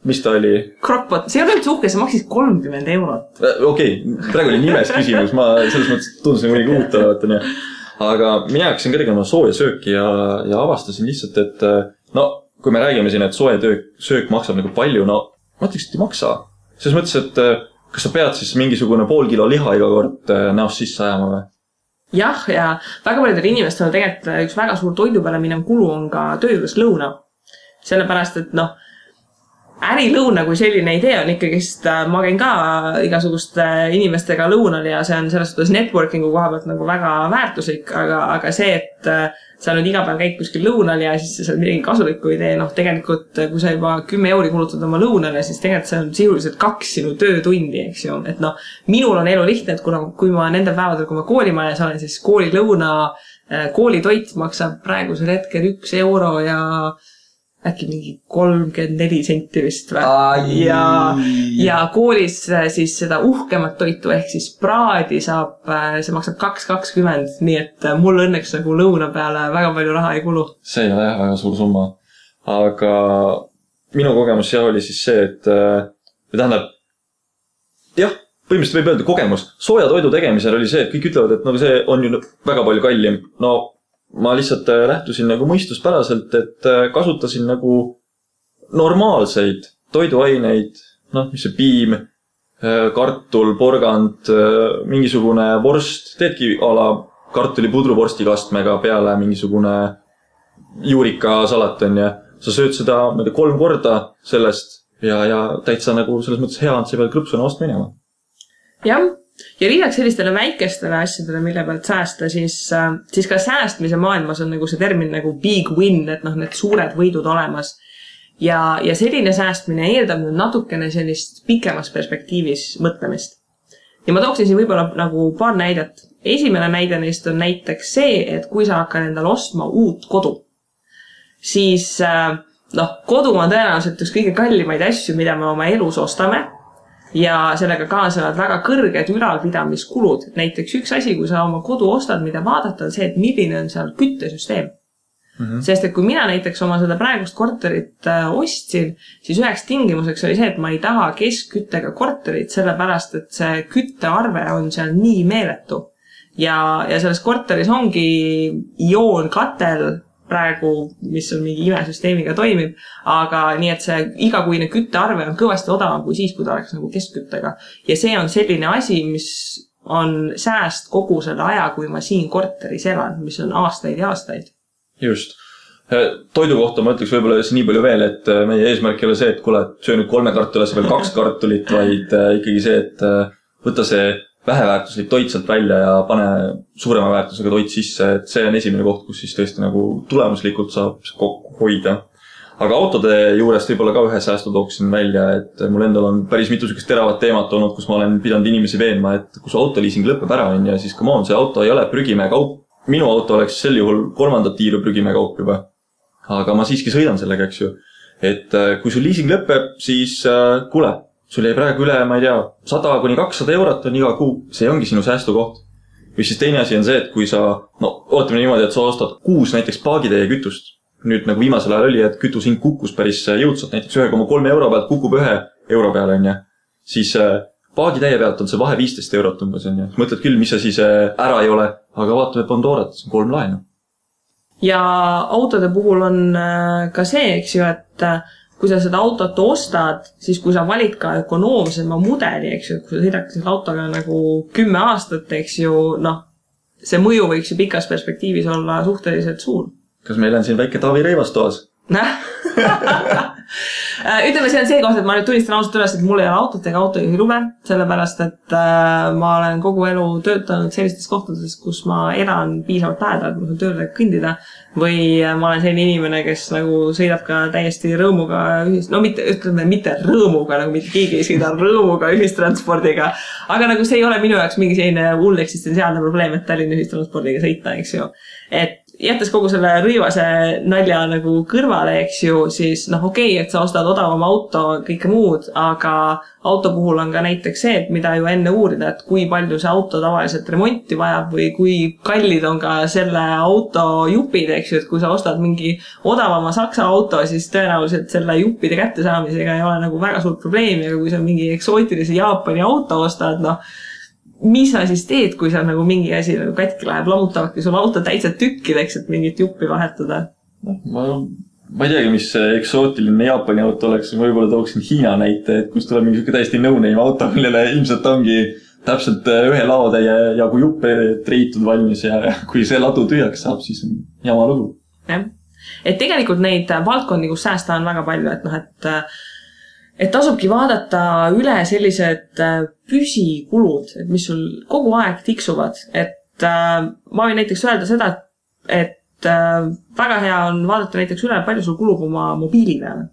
mis ta oli? Crockpot, see ei ole üldse uhke, see maksis 30 eurot. Okei, praegu oli nimes küsimus, ma selles mõttes tundusin mõni kuutavatan. Aga mina hakkasin ka tegema sooja sööki ja avastasin lihtsalt, et kui me räägime siin, et soe söök maksab nagu palju, ma ütleks, et ei maksa. Selles mõttes, et kas sa pead siis mingisugune pool kilo liha iga kord näost sisse ajama või? Jah, ja väga paljudel inimestel on tegelikult üks väga suur toidu peale minev kulu on ka töö juures lõuna. Sellepärast, et ärilõuna kui selline idee on ikkagist, ma käin ka igasuguste inimestega lõunal ja see on selles suhtes networkingu koha pealt nagu väga väärtuslik, aga see, et sa nüüd iga päev käid kuskil lõunal ja siis see on midagi kasulikku idee, tegelikult kui sa juba 10 euri kulutad oma lõunale, siis tegelikult see on sisuliselt 2 sinu töötundi, eks ju. Et minul on elu lihtne, et kui ma nendel päevadel, kui ma koolimajas olen, siis koolilõuna, koolitoit maksab praegusel hetkel 1 euro ja äkki mingi 34 senti vist või. Ja koolis siis seda uhkemat toitu ehk siis praadi saab, see maksab 2,20, nii et mul õnneks nagu lõuna peale väga palju raha ei kulu. See ei ole jah väga suur summa. Aga minu kogemus oli siis see, et tähendab, jah, põhimõtteliselt võib öelda kogemus. Sooja toidu tegemisel oli see, et kõik ütlevad, et nagu see on ju väga palju kallim. No ma lihtsalt lähtusin nagu mõistuspäraselt, et kasutasin nagu normaalseid toiduaineid, noh, mis see piim, kartul, porgand, mingisugune vorst, teedki ala kartulipudru vorstikastmega peale mingisugune juurikasalat on ja sa sööd seda 3 korda sellest ja täitsa nagu selles mõttes hea on, sa pead krõpsuna vastu minema. Jah, ja lisaks sellistele väikestele asjadele, mille pealt säästa, siis ka säästmise maailmas on nagu see termin nagu big win, et noh, need suured võidud olemas. Ja selline säästmine eeldab natukene sellist pikemas perspektiivis mõtlemist. Ja ma tooksin siin võib-olla nagu paar näidet. Esimene näide neist on näiteks see, et kui sa hakkad endale ostma uut kodu, siis kodu on tõenäoliselt üks kõige kallimaid asju, mida me oma elus ostame ja sellega kaasnevad väga kõrged ülalpidamiskulud. Näiteks üks asi, kui sa oma kodu ostad, mida vaadata, on see, et milline on seal küttesüsteem. Sest et kui mina näiteks oma seda praegust korterit ostsin, siis üheks tingimuseks oli see, et ma ei taha keskküttega korterit, sellepärast, et see küttearve on seal nii meeletu. Ja selles korteris ongi ioonkatel praegu, mis on mingi imesüsteemiga toimib, aga nii, et see igakuine küttearve on kõvasti odavam kui siis, kui ta oleks nagu keskküttega. Ja see on selline asi, mis on sääst kogu selle aja, kui ma siin korteris elan, mis on aastaid ja aastaid. Just. Toidu kohta ma ütleks võib-olla nii palju veel, et meie eesmärk ei ole see, et kuule, söö nüüd 3 kartulit, veel 2 kartulit, vaid ikkagi see, et võtta see väheväärtuslik toit sealt välja ja pane suurema väärtusega toit sisse, et see on esimene koht, kus siis tõesti nagu tulemuslikult saab kokku hoida. Aga autode juurest võib-olla ka ühe säästu tooksin välja, et mul endal on päris mitu sükest teravat teemat olnud, kus ma olen pidanud inimesi veenma, et kus autoliising lõpeb ära on ja siis come on, see auto ei ole prügimäe kaup. Minu auto oleks sel juhul 3. tiiru prügimäe kaup juba. Aga ma siiski sõidan sellega, eks ju. Et kui sul liising lõpeb, siis kuule, sul jäi praegu üle, ma ei tea, 100–200 eurot on iga kuu. See ongi sinu säästukoht. Või siis teine asi on see, et kui sa, ootame niimoodi, et sa ostad 6 näiteks paagitäie kütust. Nüüd nagu viimasel ajal oli, et kütushind kukkus päris jõudsalt, näiteks 1,3 euro pealt kukub 1 euro peale, on ja. Siis paagitäie pealt on see vahe 15 eurot umbes, on ja. Mõtled küll, mis asi see ära ei ole, aga vaatame Pandorat, see on 3 laenu. Ja autode puhul on ka see, eks ju, et kui sa seda autot ostad, siis kui sa valid ka ökonoomsema mudeli, eks ju, et kui sa sõidad selle autoga nagu 10 aastat, eks ju, see mõju võiks ju pikas perspektiivis olla suhteliselt suur. Kas meil on siin väike Taavi Reivas toas? Ütleme, see on see koht, et ma nüüd tunnistan ausalt üles, et mul ei ole autot ega autojuhi lube, sellepärast, et ma olen kogu elu töötanud sellistes kohtades, kus ma elan piisavalt lähedalt, ma saan tööle kõndida, või ma olen selline inimene, kes nagu sõidab ka täiesti rõõmuga mitte rõõmuga, nagu mitte keegi ei sõida rõõmuga ühistranspordiga, aga nagu see ei ole minu jaoks mingi selline hull eksistentsiaalne probleem, et Tallinna ühistranspordiga sõita, eks ju. Et jättes kogu selle rõivase nalja nagu kõrvale, eks ju, siis okei, et sa ostad odavama auto, kõike muud, aga auto puhul on ka näiteks see, et mida ju enne uurida, et kui palju see auto tavaliselt remonti vajab või kui kallid on ka selle auto jupid, eks ju, et kui sa ostad mingi odavama Saksa auto, siis tõenäoliselt selle juppide kättesaamisega ei ole nagu väga suurt probleemi, aga kui sa mingi eksootilise Jaapani auto ostad, mis sa siis teed, kui sa nagu mingi asi nagu katki läheb, lammutavadki sul auto täitsa tükkideks, et mingit juppi vahetada? Ma ei teagi, mis eksootiline Jaapani auto oleks, võib-olla tooksin Hiina näite, et kus tuleb mingi täiesti no-name auto, millele ilmselt ongi täpselt 1 laotäie jagu juppe treitud valmis ja kui see ladu tühjaks saab, siis on jama lugu. Jah. Et tegelikult neid valdkondi, kus säästa on väga palju, et tasubki vaadata üle sellised püsikulud, et mis sul kogu aeg tiksuvad. Et ma võin näiteks öelda seda, et väga hea on vaadata näiteks üle, palju sul kulub oma mobiili peale.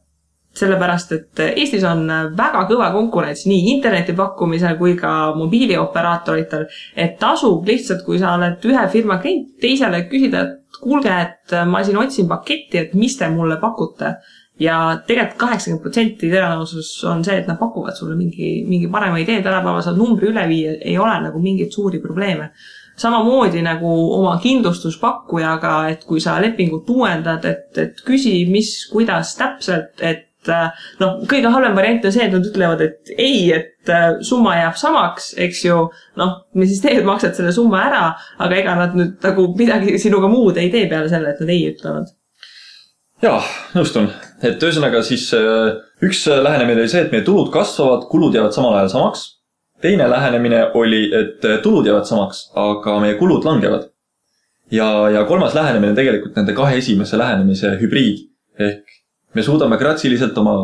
Sellepärast, et Eestis on väga kõva konkurents nii interneti pakkumisel kui ka mobiilioperaatoritel, et tasub lihtsalt, kui sa oled ühe firma klient, teisele küsida, et kuulge, et ma siin otsin paketti, et mis te mulle pakute. Ja tegelikult 80% tõenäosus on see, et nad pakuvad sulle mingi parema idee, tänapäeval saad numbri üle viia, ei ole nagu mingit suuri probleeme. Samamoodi nagu oma kindlustuspakkujaga, et kui sa lepingut uuendad, et küsi, kuidas täpselt, et noh, kõige halvem variant on see, et nad ütlevad, et ei, et summa jääb samaks, eks ju, noh, me siis teed maksad selle summa ära, aga ega nad nüüd nagu midagi sinuga muud ei tee peale selle, et nad ei ütlevad. Jaa, nõustun. Et ühesõnaga siis üks lähenemine oli see, et meie tulud kasvavad, kulud jäävad samal ajal samaks. Teine lähenemine oli, et tulud jäävad samaks, aga meie kulud langevad. Ja kolmas lähenemine tegelikult nende kahe esimese lähenemise hübriid. Ehk me suudame gratsiliselt oma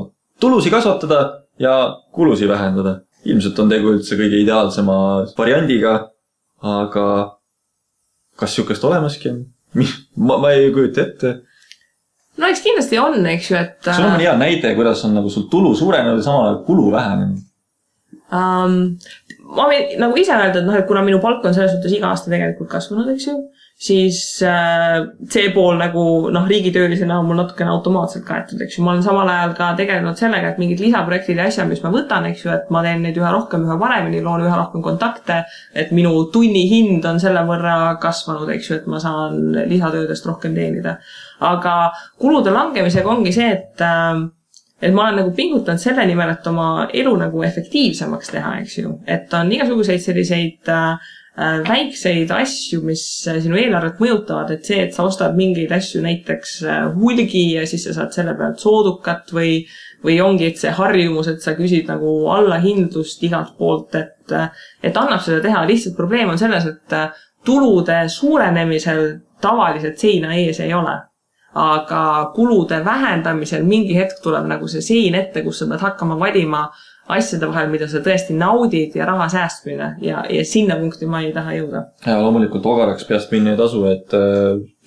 tulusi kasvatada ja kulusi vähendada. Ilmselt on tegu üldse kõige ideaalsema variandiga, aga kas siukest olemaski on? Ma ei kujuta ette. No eks kindlasti on, eks ju, et... Sul on hea näide, kuidas on nagu sul tulu suurenenud ja samal ajal kulu vähenenud. Ma võin nagu ise öelda, et, et kuna minu palk on selles suhtes iga aasta tegelikult kasvanud, eks ju, siis see pool nagu riigitöölisena on mul natukene automaatselt kaetud, eks ju. Ma olen samal ajal ka tegelenud sellega, et mingid lisaprojektid ja asja, mis ma võtan, eks ju, et ma teen neid üha rohkem, üha paremini, loon üha rohkem kontakte, et minu tunni hind on selle võrra kasvanud, eks ju, et ma saan lisatöödest rohkem teenida. Aga kulude langemisega ongi see, et ma olen nagu pingutanud selle nimel, et oma elu nagu efektiivsemaks teha, eks ju. Et on igasuguseid selliseid väikseid asju, mis sinu eelarvet mõjutavad, et see, et sa ostad mingeid asju näiteks hulgi ja siis sa saad selle pealt soodukat või ongi, et see harjumus, et sa küsid nagu allahindlust igalt poolt, et annab seda teha. Lihtsalt probleem on selles, et tulude suurenemisel tavaliselt seina ees ei ole. Aga kulude vähendamisel mingi hetk tuleb nagu see sein ette, kus sa pead hakkama valima asjade vahel, mida sa tõesti naudid ja raha säästmine ja sinna punkti ma ei taha jõuda. Ja loomulikult ogaraks peast minna ei tasu, et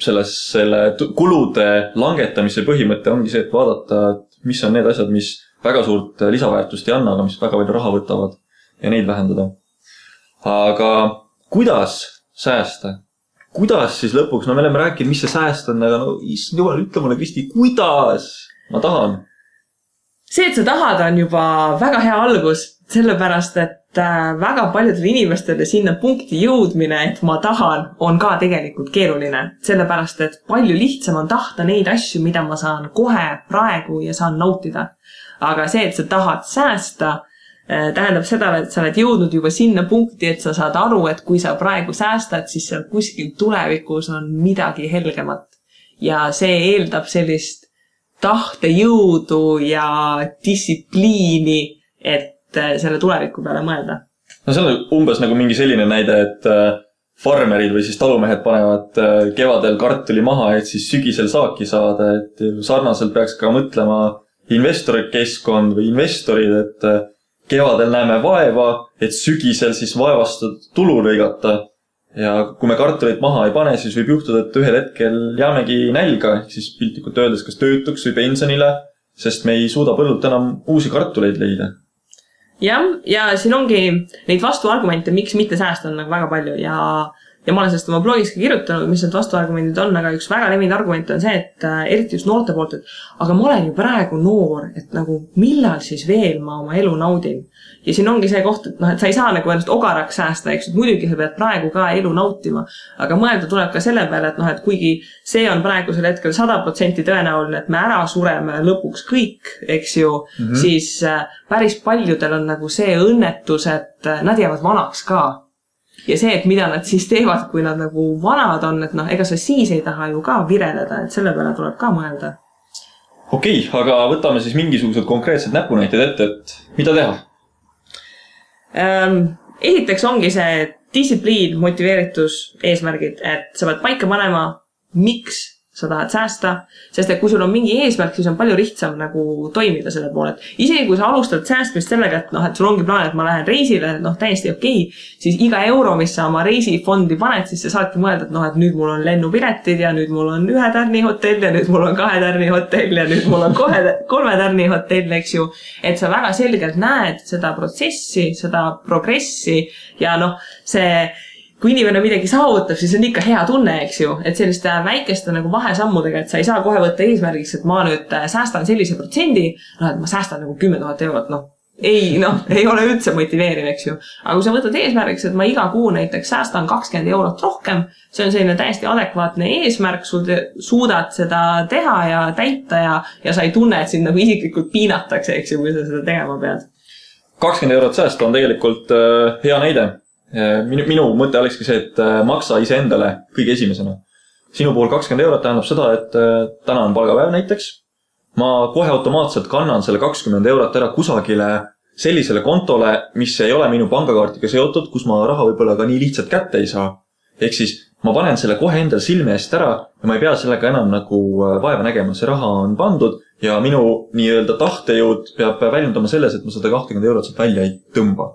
selle kulude langetamise põhimõte ongi see, et vaadata, mis on need asjad, mis väga suurt lisaväärtust ei anna, aga mis väga palju raha võtavad ja neid vähendada. Aga kuidas säästa? Kuidas siis lõpuks? Me oleme rääkinud, mis see sääst on, aga jumal, ütle mulle, Kristi, kuidas? Ma tahan. See, et sa tahad, on juba väga hea algus, sellepärast, et väga paljudele inimestele sinna punkti jõudmine, et ma tahan, on ka tegelikult keeruline. Sellepärast, et palju lihtsam on tahta neid asju, mida ma saan kohe praegu ja saan nautida. Aga see, et sa tahad säästa, tähendab seda, et sa oled jõudnud juba sinna punkti, et sa saad aru, et kui sa praegu säästad, siis seal kuskil tulevikus on midagi helgemat. Ja see eeldab sellist tahtejõudu ja distsipliini, et selle tuleviku peale mõelda. No see on umbes nagu mingi selline näide, et farmerid või siis talumehed panevad kevadel kartuli maha, et siis sügisel saaki saada, et sarnaselt peaks ka mõtlema investorikeskkond või investorid, et kevadel näeme vaeva, et sügisel siis vaevastud tulu lõigata. Ja kui me kartulit maha ei pane, siis võib juhtuda, et ühel hetkel jäämegi nälga, siis piltlikult öeldes kas töötuks või pensionile, sest me ei suuda põllult enam uusi kartuleid leida. Ja siin ongi neid vastuargumente, miks mitte säästa on nagu väga palju ja ma olen sellest oma blogis ka kirjutanud, mis need vastuargumendid on, aga üks väga levinud argument on see, et eriti just noorte poolt, et aga ma olen ju praegu noor, et nagu millal siis veel ma oma elu naudin. Ja siin ongi see koht, et et sa ei saa nagu ennast ogaraks säästa, eks, et muidugi sa pead praegu ka elu nautima, aga mõelda tuleb ka selle peale, et kuigi see on praegusel hetkel 100% tõenäoline, et me ära sureme lõpuks kõik, eks ju, siis päris paljudel on nagu see õnnetus, et nad jäävad vanaks ka. Ja see, et mida nad siis teevad, kui nad nagu vanad on, et ega sa siis ei taha ju ka vireleda, et selle peale tuleb ka mõelda. Okei, aga võtame siis mingisugused konkreetsed näpunäited ette, et mida teha? Esiteks ongi see distsipliin, motiveeritus, eesmärgid, et sa pead paika panema, miks sa tahad säästa, sest et kui sul on mingi eesmärk, siis on palju lihtsam nagu toimida selle poole. Isegi kui sa alustad säästmist sellega, et sul ongi plaan, et ma lähen reisile, täiesti okei, siis iga euro, mis sa oma reisifondi paned, siis sa saadki mõelda, et nüüd mul on lennupiletid ja nüüd mul on 1 tärni hotell ja nüüd mul on 2 tärni hotell ja nüüd mul on 3 tärni hotell, eks ju. Et sa väga selgelt näed seda protsessi, seda progressi ja kui inimene midagi saavutab, siis on ikka hea tunne, eks ju, et selliste väikeste nagu vahesammudega, et sa ei saa kohe võtta eesmärgiks, et ma nüüd säästan sellise protsendi, et ma säästan nagu 10 000 eurot, ei ole üldse motiveeriv, eks ju. Aga kui sa võtad eesmärgiks, et ma iga kuu näiteks säästan 20 eurot rohkem, see on selline täiesti adekvaatne eesmärk, sul suudad seda teha ja täita ja sa ei tunne, et sind nagu isiklikult piinatakse, eks ju, kui sa seda tegema pead. 20 eurot säästa on tegelikult hea näide. Minu mõte olekski see, et maksa iseendale kõige esimesena. Sinu puhul 20 eurot tähendab seda, et täna on palgapäev näiteks. Ma kohe automaatselt kannan selle 20 eurot ära kusagile sellisele kontole, mis ei ole minu pangakaartiga seotud, kus ma raha võib-olla ka nii lihtsalt kätte ei saa. Ehk siis ma panen selle kohe endal silme eest ära ja ma ei pea sellega enam nagu vaeva nägema. See raha on pandud ja minu nii-öelda tahtejõud peab väljendama selles, et ma seda 20 eurot sealt välja ei tõmba.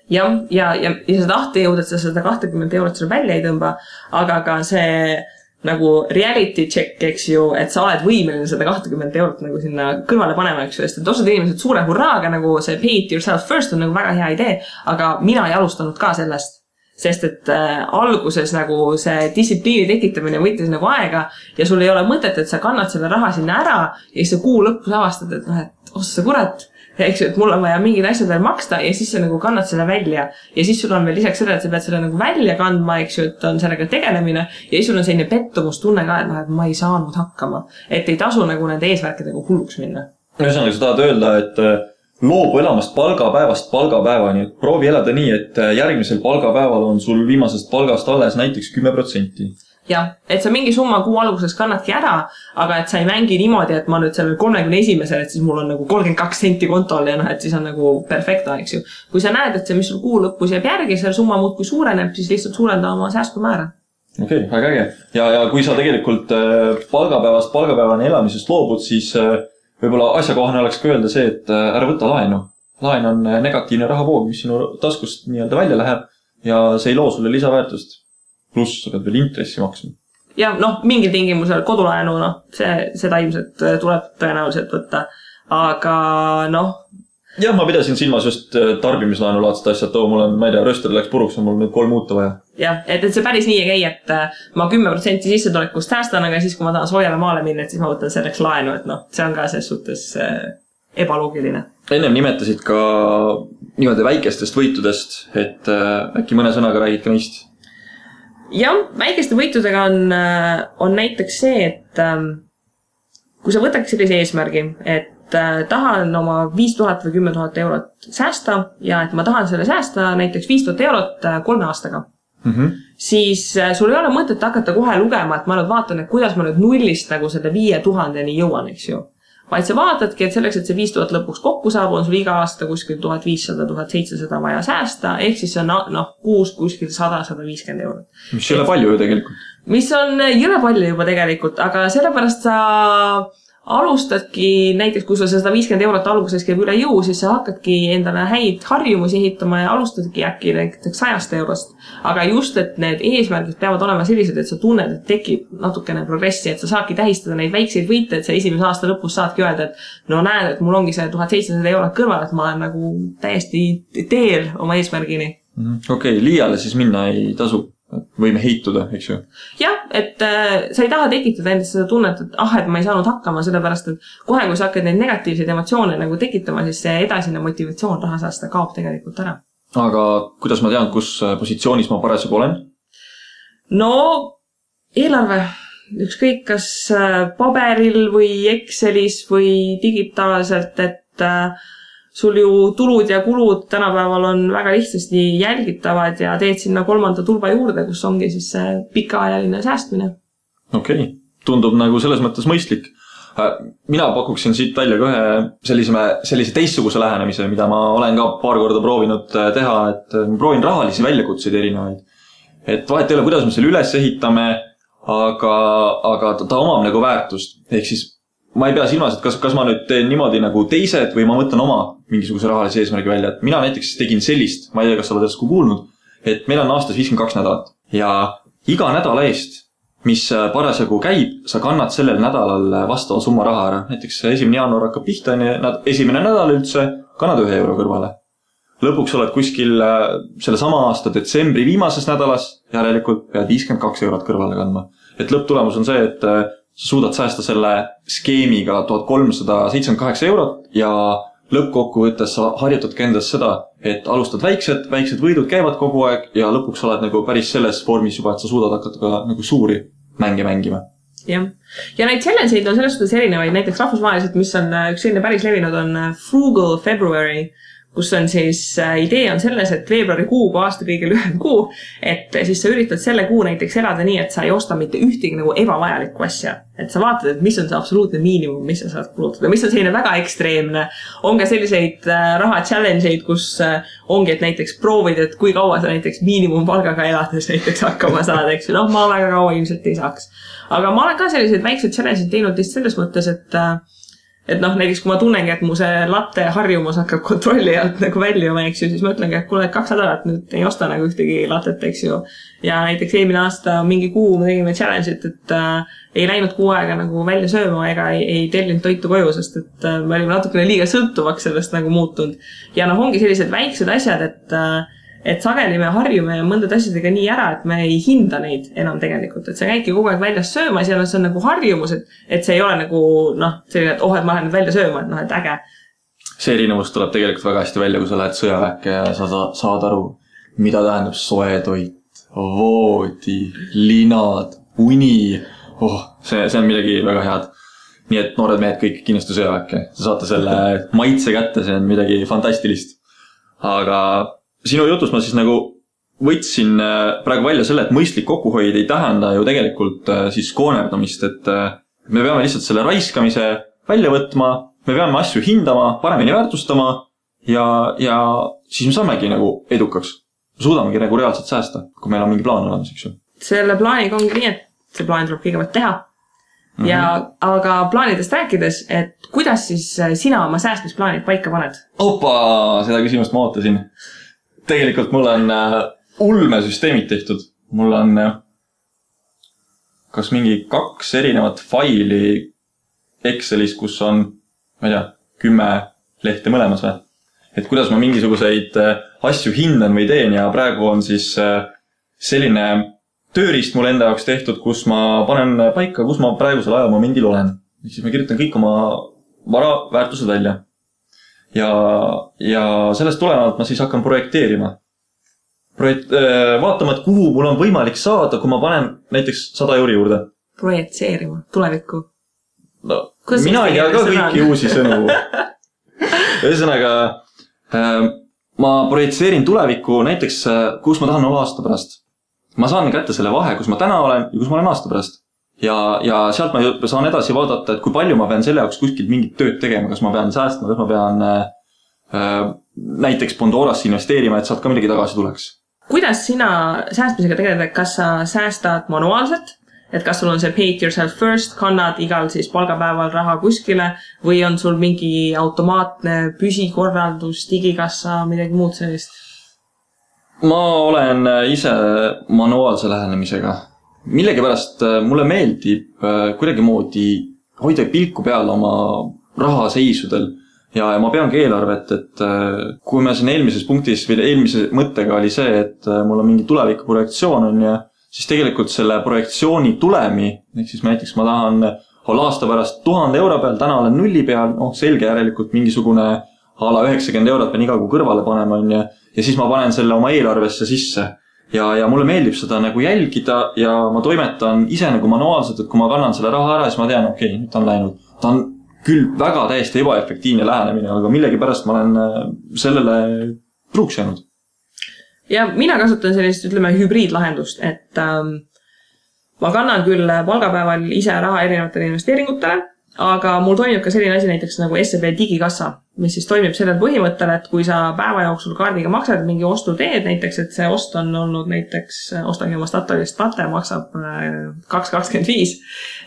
Ja see tahtejõud, et sa seda 20 eurot seal välja ei tõmba, aga ka see nagu reality check, eks ju, et sa oled võimeline seda 20 eurot nagu sinna kõrvale panema, eks ju, sest et osad inimesed suure hurraaga nagu see pay it yourself first on nagu väga hea idee, aga mina ei alustanud ka sellest, sest et alguses nagu see distsipliini tekitamine võttis nagu aega ja sul ei ole mõtet, et sa kannad selle raha sinna ära ja siis sa kuu lõpus avastad, et et ossa kurat, eks ju, et mul on vaja mingid asjad veel maksta ja siis sa nagu kannad selle välja ja siis sul on veel lisaks selle, et sa pead selle nagu välja kandma, eks ju, et on sellega tegelemine ja siis sul on selline pettumustunne ka, et ma ei saanud hakkama, et ei tasu nagu nende eesmärkidega hulluks minna. Ühesõnaga, sa tahad öelda, et loobu elamast palgapäevast palgapäevani, proovi elada nii, et järgmisel palgapäeval on sul viimasest palgast alles näiteks 10%. Jah, et sa mingi summa kuu alguses kannadki ära, aga et sa ei mängi niimoodi, et ma nüüd sellel 31-sel, et siis mul on nagu 32 senti kontol ja et siis on nagu perfekta, eks ju. Kui sa näed, et see, mis sul kuu lõpus jääb järgi, selle summa muud kui suureneb, siis lihtsalt suurenda oma säästumäära. Okei, väga äge. Ja kui sa tegelikult palgapäevast palgapäevani elamisest loobud, siis võib-olla asjakohane oleks ka öelda see, et ära võta laenu. Laen on negatiivne rahavoog, mis sinu taskust nii-öelda välja läheb ja see ei loo sulle lisaväärtust. Pluss sa pead veel intressi maksma. Ja mingil tingimusel kodulaenu, seda ilmselt tuleb tõenäoliselt võtta. Aga Jah, ma pidasin silmas just tarbimislaenu laadset asjad, mul on, ma ei tea, rööster läks puruks, on mul nüüd 3 muuta vaja. Jah, et see päris nii ei käi, et ma 10% sissetulekust säästan, aga siis kui ma tahan soojale maale minna, et siis ma võtan selleks laenu, et see on ka selles suhtes ebaloogiline. Ennem nimetasid ka niimoodi väikestest võitudest, et äkki mõne sõnaga räägid ka neist? Jah, väikeste võitudega on näiteks see, et kui sa võtaks sellise eesmärgi, et tahan oma 5000 või 10 000 eurot säästa ja et ma tahan selle säästa näiteks 5000 eurot 3 aastaga, siis sul ei ole mõtet hakata kohe lugema, et ma nüüd vaatan, et kuidas ma nüüd nullist nagu selle 5000-ni jõuan, eks ju. Vaid sa vaatadki, et selleks, et see 5000 lõpuks kokku saab, on sul iga aasta kuskil 1500-1700 vaja säästa, ehk siis on kuus kuskil 100-150 eurot. Mis ei ole palju ju tegelikult. Mis on jõle palju juba tegelikult, aga sellepärast sa alustadki, näiteks kui sa 150 eurot alguses käib üle jõu, siis sa hakkadki endale häid harjumusi ehitama ja alustadki äkki näiteks 100 eurost. Aga just, et need eesmärgid peavad olema sellised, et sa tunned, et tekib natukene progressi, et sa saadki tähistada neid väikseid võite, et sa esimese aasta lõpus saadki öelda, et näed, et mul ongi see 1700 eurot kõrval, et ma olen nagu täiesti teel oma eesmärgini. Okei, liiale siis minna ei tasu. Võime heituda, eks ju? Jah, et sa ei taha tekitada endast seda tunnet, et ma ei saanud hakkama, sellepärast, et kohe, kui sa hakkad neid negatiivseid emotsioone nagu tekitama, siis see edasine motivatsioon raha säästa kaob tegelikult ära. Aga kuidas ma tean, kus positsioonis ma parasjagu olen? Eelarve. Ükskõik kas paberil või Excelis või digitaalselt, et sul ju tulud ja kulud tänapäeval on väga lihtsasti jälgitavad ja teed sinna 3. tulba juurde, kus ongi siis see pikaajaline säästmine. Okei, tundub nagu selles mõttes mõistlik. Mina pakuksin siit välja ka ühe sellise teistsuguse lähenemise, mida ma olen ka paar korda proovinud teha, et ma proovin rahalisi väljakutseid erinevaid. Et vahet ei ole, kuidas me selle üles ehitame, aga ta omab nagu väärtust. Ehk siis ma ei pea silmas, et kas ma nüüd teen niimoodi nagu teised või ma võtan oma mingisuguse rahalise eesmärgi välja. Et mina näiteks tegin sellist, ma ei tea, kas sa oled järsku kuulnud, et meil on aastas 52 nädalat ja iga nädala eest, mis parasjagu käib, sa kannad sellel nädalal vastava summa raha ära. Näiteks 1. jaanuar hakkab pihta, esimene nädal üldse, kannad 1 euro kõrvale. Lõpuks oled kuskil selle sama aasta detsembri viimases nädalas, järelikult pead 52 eurot kõrvale kandma. Et lõpptulemus on see, et sa suudad säästa selle skeemiga 1378 eurot ja lõppkokkuvõttes sa harjutadki endas seda, et alustad väiksed võidud käivad kogu aeg ja lõpuks oled nagu päris selles vormis juba, et sa suudad hakata ka nagu suuri mänge mängima. Jah. Ja neid challenge'id on selles suhtes erinevaid, näiteks rahvusvaheliselt, mis on üks selline päris levinud, on Frugal February, kus on siis idee on selles, et veebruarikuu kui aasta kõige lühem kuu, et siis sa üritad selle kuu näiteks elada nii, et sa ei osta mitte ühtegi nagu ebavajalikku asja. Et sa vaatad, et mis on see absoluutne miinimum, mis sa saad kulutada, mis on selline väga ekstreemne. On ka selliseid raha challenge'id, kus ongi, et näiteks proovid, et kui kaua sa näiteks miinimumpalgaga elades näiteks hakkama saad, eks ju. Ma väga kaua ilmselt ei saaks. Aga ma olen ka selliseid väikseid challenge'id teinud lihtsalt selles mõttes, et näiteks kui ma tunnengi, et mu see latte harjumus hakkab kontrolli alt nagu väljuma, eks ju, siis ma ütlengi, et kuule 2 nädalat nüüd ei osta nagu ühtegi latet, eks ju. Ja näiteks eelmine aasta mingi kuu me tegime challenge'it, et ei läinud kuu aega nagu välja sööma ega ei tellinud toitu koju, sest et me olime natukene liiga sõltuvaks sellest nagu muutunud. Ja ongi sellised väiksed asjad, et sageli me harjume mõndad asjadega nii ära, et me ei hinda neid enam tegelikult, et sa käidki kogu aeg väljas söömas ja see on nagu harjumus, et see ei ole nagu selline, et et ma lähen nüüd välja sööma, et äge. See erinevus tuleb tegelikult väga hästi välja, kui sa lähed sõjaväkke ja sa saad aru, mida tähendab soe toit, voodi, linad, uni. See on midagi väga head. Nii et noored mehed kõik kindlasti sõjaväkke. Sa saate selle maitse kätte, see on midagi fantastilist. Aga sinu jutus ma siis nagu võtsin praegu välja selle, et mõistlik kokkuhoid ei tähenda ju tegelikult siis koonerdamist, et me peame lihtsalt selle raiskamise välja võtma, me peame asju hindama, paremini väärtustama ja siis me saamegi nagu edukaks. Suudamegi nagu reaalselt säästa, kui meil on mingi plaan olemas, eks ju. Selle plaaniga ongi nii, et see plaan tuleb kõigepealt teha. Aga plaanidest rääkides, et kuidas siis sina oma säästmisplaanid paika paned? Seda küsimust ma ootasin. Tegelikult mul on ulmesüsteemid tehtud. Mul on kas mingi 2 erinevat faili Excelis, kus on, ma ei tea, 10 lehte mõlemas või. Et kuidas ma mingisuguseid asju hindan või teen ja praegu on siis selline tööriist mul enda jaoks tehtud, kus ma panen paika, kus ma praegusel ajamomendil olen. Siis ma kirjutan kõik oma vara väärtused välja. Ja sellest tulenevalt ma siis hakkan projekteerima. Vaatama, et kuhu mul on võimalik saada, kui ma panen näiteks 100 euri juurde. Projekteerima, tulevikku. Mina ei tea ka kõiki uusi sõnu. Ühesõnaga, ma projitseerin tulevikku näiteks, kus ma tahan olla aasta pärast. Ma saan kätte selle vahe, kus ma täna olen ja kus ma olen aasta pärast. Ja sealt ma saan edasi vaadata, et kui palju ma pean selle jaoks kuskilt mingit tööd tegema, kas ma pean säästma, kas ma pean näiteks Pandorasse investeerima, et sealt ka midagi tagasi tuleks. Kuidas sina säästmisega tegeled, kas sa säästad manuaalselt, et kas sul on see pay it yourself first, kannad igal siis palgapäeval raha kuskile või on sul mingi automaatne püsikorraldus, digikassa, midagi muud sellist? Ma olen ise manuaalse lähenemisega. Millegipärast mulle meeldib kuidagimoodi hoida pilku peal oma rahaseisudel ja ma peangi eelarvet, et kui me siin eelmises punktis või eelmise mõttega oli see, et mul on mingi tulevikuprojektsioon on ja siis tegelikult selle projektsiooni tulemi, ehk siis näiteks ma tahan olla aasta pärast 1000 euro peal, täna olen 0 peal, selge järelikult mingisugune ala 90 eurot pean iga kuu kõrvale panema on ja siis ma panen selle oma eelarvesse sisse. Ja mulle meeldib seda nagu jälgida ja ma toimetan ise nagu manuaalselt, et kui ma kannan selle raha ära, siis ma tean, okei, nüüd ta on läinud. Ta on küll väga täiesti ebaefektiivne lähenemine, aga millegi pärast ma olen sellele truuks jäänud. Ja mina kasutan sellist, ütleme, hübriidlahendust, et ma kannan küll palgapäeval ise raha erinevatele investeeringutele, aga mul toimib ka selline asi näiteks nagu SEB digikassa, mis siis toimib sellel põhimõttel, et kui sa päeva jooksul kaardiga maksad mingi ostu teed, näiteks, et see ost on olnud näiteks, ostagi oma Statoilist plate, maksab 2,25,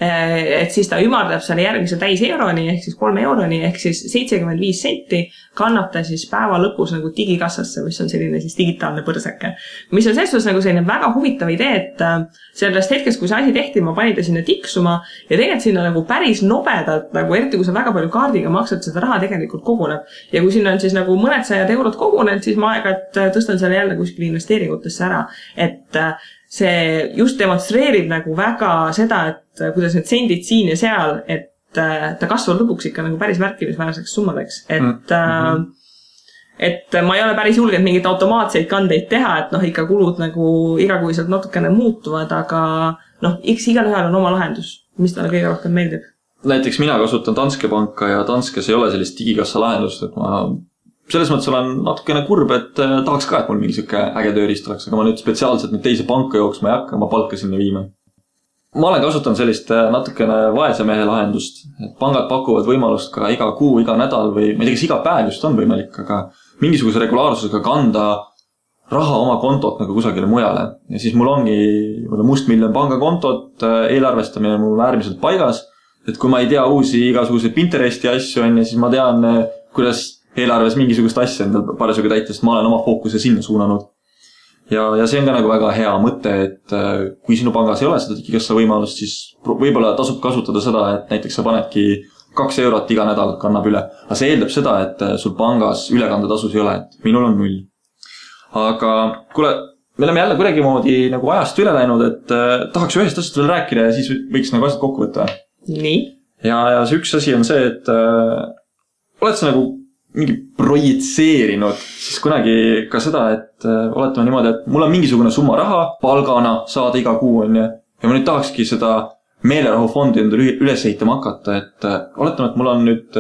et siis ta ümardab selle järgmise täis euroni, ehk siis 3 euroni, ehk siis 75 senti kannab ta siis päeva lõpus nagu digikassasse, mis on selline siis digitaalne põrsake. Mis on selles nagu selline väga huvitav idee, et sellest hetkest, kui see asi tehti, ma panin ta sinna tiksuma ja tegelikult sinna nagu päris nobedalt, nagu eriti kui sa väga palju kaardiga maksad, seda raha tegelikult koguneb. Ja kui sinna on siis nagu mõned 100 eurot kogunenud, siis ma aeg-ajalt tõstan selle jälle kuskil investeeringutesse ära. Et see just demonstreerib nagu väga seda, et kuidas need sendid siin ja seal, et ta kasvab lõpuks ikka nagu päris märkimisväärseks summadeks, et ma ei ole päris julgenud mingeid automaatseid kandeid teha, et ikka kulud nagu igakuiselt natukene muutuvad, aga eks igalühel on oma lahendus, mis talle kõige rohkem meeldib. Näiteks mina kasutan Danske panka ja Danskes ei ole sellist digikassa lahendust, et ma selles mõttes olen natukene kurb, et tahaks ka, et mul mingi siuke äge tööriist oleks, aga ma nüüd spetsiaalselt nüüd teise panka jooksma ei hakka, ma palka sinna viima. Ma olen kasutanud sellist natukene vaese mehe lahendust, et pangad pakuvad võimalust ka iga kuu, iga nädal või ma ei tea, kas iga päev just on võimalik, aga mingisuguse regulaarsusega kanda raha oma kontot nagu kusagile mujale. Ja siis mul ongi mustmiljon pangakontot, eelarvestamine mul äärmiselt paigas, et kui ma ei tea uusi igasuguseid Pinteresti asju on, siis ma tean, kuidas eelarves mingisugust asja endal parasjagu täita, sest ma olen oma fookuse sinna suunanud. Ja see on ka nagu väga hea mõte, et kui sinu pangas ei ole seda digikassa võimalust, siis võib-olla tasub kasutada seda, et näiteks sa panedki 2 eurot iga nädal kannab üle. Aga see eeldab seda, et sul pangas ülekandetasus ei ole, et minul on 0. Aga kuule, me oleme jälle kuidagimoodi nagu ajast üle läinud, et tahaks ühest asjast veel rääkida ja siis võiks nagu asjad kokku võtta. Nii. Ja see üks asi on see, et oled sa nagu mingi projitseerinud siis kunagi ka seda, et oletame niimoodi, et mul on mingisugune summa raha palgana saada iga kuu on ja ma nüüd tahakski seda meelerahufondi endale üles ehitama hakata, et oletame, et mul on nüüd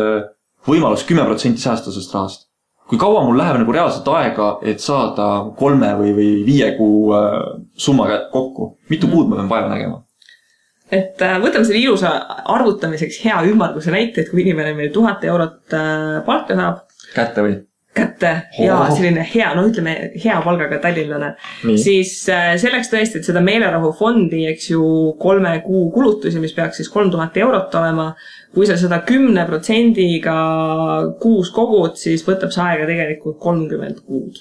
võimalus 10% säästa sellest rahast. Kui kaua mul läheb nagu reaalselt aega, et saada 3 või 5 kuu summa kokku? Mitu kuud ma pean vaeva nägema? Et võtame selle ilusa arvutamiseks hea ümmarguse näite, et kui inimene meil 1000 eurot palka saab. Kätte või? Kätte ja selline hea, ütleme hea palgaga tallinlane. Siis selleks tõesti, et seda meelerahufondi, eks ju 3 kuu kulutusi, mis peaks siis 3000 eurot olema, kui sa seda 10%-ga kuus kogud, siis võtab see aega tegelikult 30 kuud.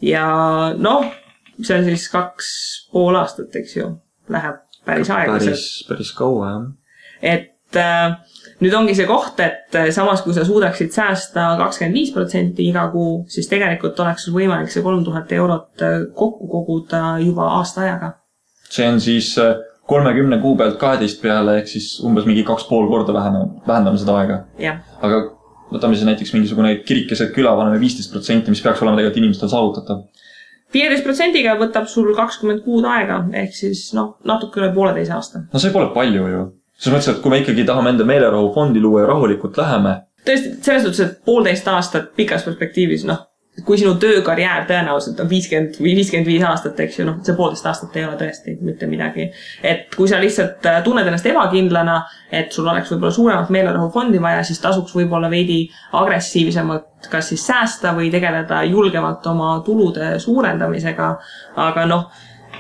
Ja see on siis 2,5 aastat, eks ju, läheb päris aeglaselt. Päris kaua, jah. Et nüüd ongi see koht, et samas kui sa suudaksid säästa 25% iga kuu, siis tegelikult oleks sul võimalik see 3000 eurot kokku koguda juba aasta ajaga. See on siis 30 kuu pealt 12 peale, ehk siis umbes mingi 2,5 korda vähendame seda aega. Ja. Aga võtame siis näiteks mingisugune kirikeset küla, paneme 15%, mis peaks olema tegelikult inimestel saavutatav. 15%-ga võtab sul 20 kuud aega, ehk siis natuke üle 1,5 aasta. See pole palju ju. Selles mõttes, et kui me ikkagi tahame enda meelerahufondi luua ja rahulikult läheme. Tõesti, selles suhtes, et 1,5 aastat pikas perspektiivis, kui sinu töökarjäär tõenäoliselt on 50 või 55 aastat, eks ju, see 1,5 aastat ei ole tõesti mitte midagi. Et kui sa lihtsalt tunned ennast ebakindlana, et sul oleks võib-olla suuremat meelerahufondi vaja, siis tasuks võib-olla veidi agressiivsemalt kas siis säästa või tegeleda julgemalt oma tulude suurendamisega. Aga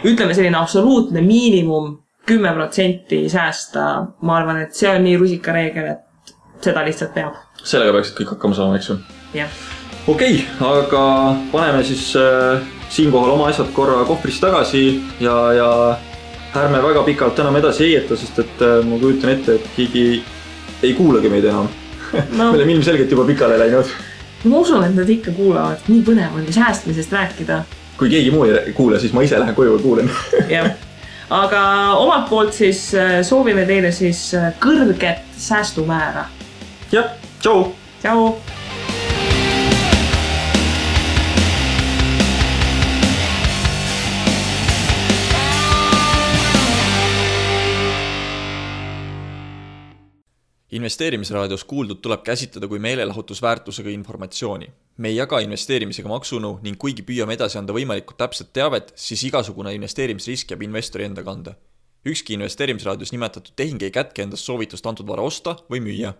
ütleme selline absoluutne miinimum 10% säästa, ma arvan, et see on nii rusikareegel, et seda lihtsalt peab. Sellega peaksid kõik hakkama saama, eks ju? Jah. Okei, aga paneme siis siinkohal oma asjad korra kohvrist tagasi ja ärme väga pikalt enam edasi heieta, sest et ma kujutan ette, et keegi ei kuulagi meid enam. Me oleme ilmselgelt juba pikale läinud. Ma usun, et nad ikka kuulavad. Nii põnev on säästmisest rääkida. Kui keegi muu ei kuule, siis ma ise lähen koju ja kuulen. Jah. Aga omalt poolt siis soovime teile siis kõrget säästumäära. Jah, tšau! Tšau! Investeerimisraadios kuuldud tuleb käsitleda kui meelelahutusväärtusega informatsiooni. Me ei jaga investeerimisega maksunu ning kuigi püüame edasi anda võimalikult täpset teavet, siis igasugune investeerimisrisk jääb investori enda kanda. Ükski investeerimisraadios nimetatud tehing ei kätke endast soovitust antud vara osta või müüa.